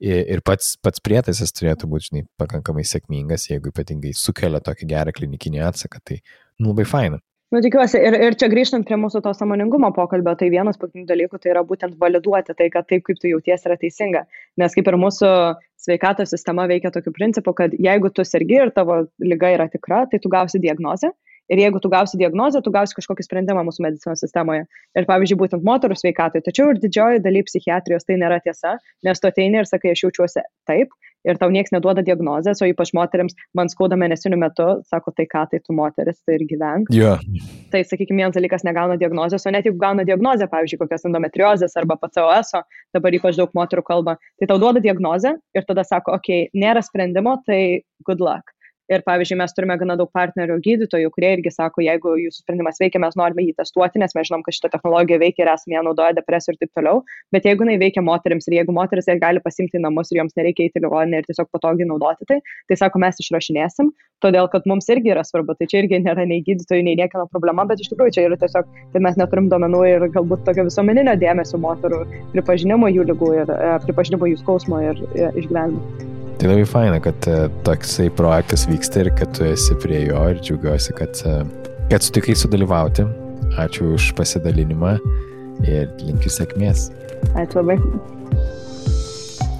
ir pats prietaisas turėtų būti, žinai, pakankamai sėkmingas, jeigu ypatingai sukelia tokį gerą klinikinį atsaką, tai labai faina. Tikiuosi, ir čia grįžtant prie mūsų to sąmoningumo pokalbio, tai vienas pagrindinių dalykų tai yra būtent validuoti tai, kad taip, kaip tu jautiesi, yra teisinga. Nes kaip ir mūsų sveikatos sistema veikia tokiu principu, kad jeigu tu sergi ir tavo liga yra tikra, tai tu gausi diagnozę. Ir jeigu tu gausi diagnozę, tu gausi kažkokį sprendimą mūsų medicinos sistemoje. Ir pavyzdžiui, būtent moterų sveikatai. Tačiau ir didžioji daly psichiatrijos tai nėra tiesa, nes tu ateini ir sakai, aš jaučiuosi taip. Ir tau nieks neduoda diagnozės, o ypač moteriams man skauda mėnesinių metu, sako, tai ką, tai tu moteris, tai ir gyvenk. Yeah. Tai, sakykime, vienas dalykas negauna diagnozės, o net jeigu gauna diagnozę, pavyzdžiui, kokios endometriozės arba PCOS-o, dabar ypač daug moterų kalba, tai tau duoda diagnozę ir tada sako, okei, nėra sprendimo, tai good luck. Ir pavyzdžiui, mes turime gana daug partnerių gydytojų, kurie irgi sako, jeigu jūsų sprendimas veikia, mes norime jį testuoti, nes mes žinom, kad šita technologija veikia ir esame ją naudoja depresijų ir taip toliau. Bet jeigu jinai veikia moterims ir jeigu moteris ją gali pasimti į namus ir joms nereikia eiti į ligoninę ir tiesiog patogiai naudoti tai sako, mes išrašinėsim, todėl kad mums irgi yra svarbu. Tai čia irgi nėra nei gydytojų, nei niekieno problema, bet iš tikrųjų čia yra tiesiog, kad mes neturim duomenų ir galbūt tokio visuomeninio dėmesio moterų pripažinimo jų ligų ir pripažinimo jų skausmo ir išgyvenimo. Tai labai faina, kad toksai projektas vyksta ir kad tu esi prie jo ir džiaugiuosi, kad sutikai sudalyvauti. Ačiū už pasidalinimą ir linkiu sėkmės. Ačiū labai.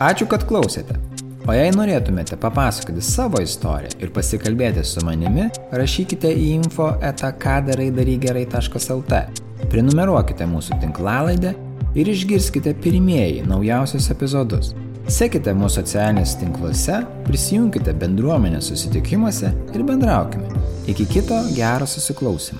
Ačiū, kad klausėte. O jei norėtumėte papasakoti savo istoriją ir pasikalbėti su manimi, rašykite į info@kadaraidarygerai.lt. Prenumeruokite mūsų tinklalaidę ir išgirskite pirmieji naujausius epizodus. Sekite mūsų socialinėse tinkluose, prisijunkite bendruomenės susitikimuose ir bendraukime. Iki kito gero susiklausymo.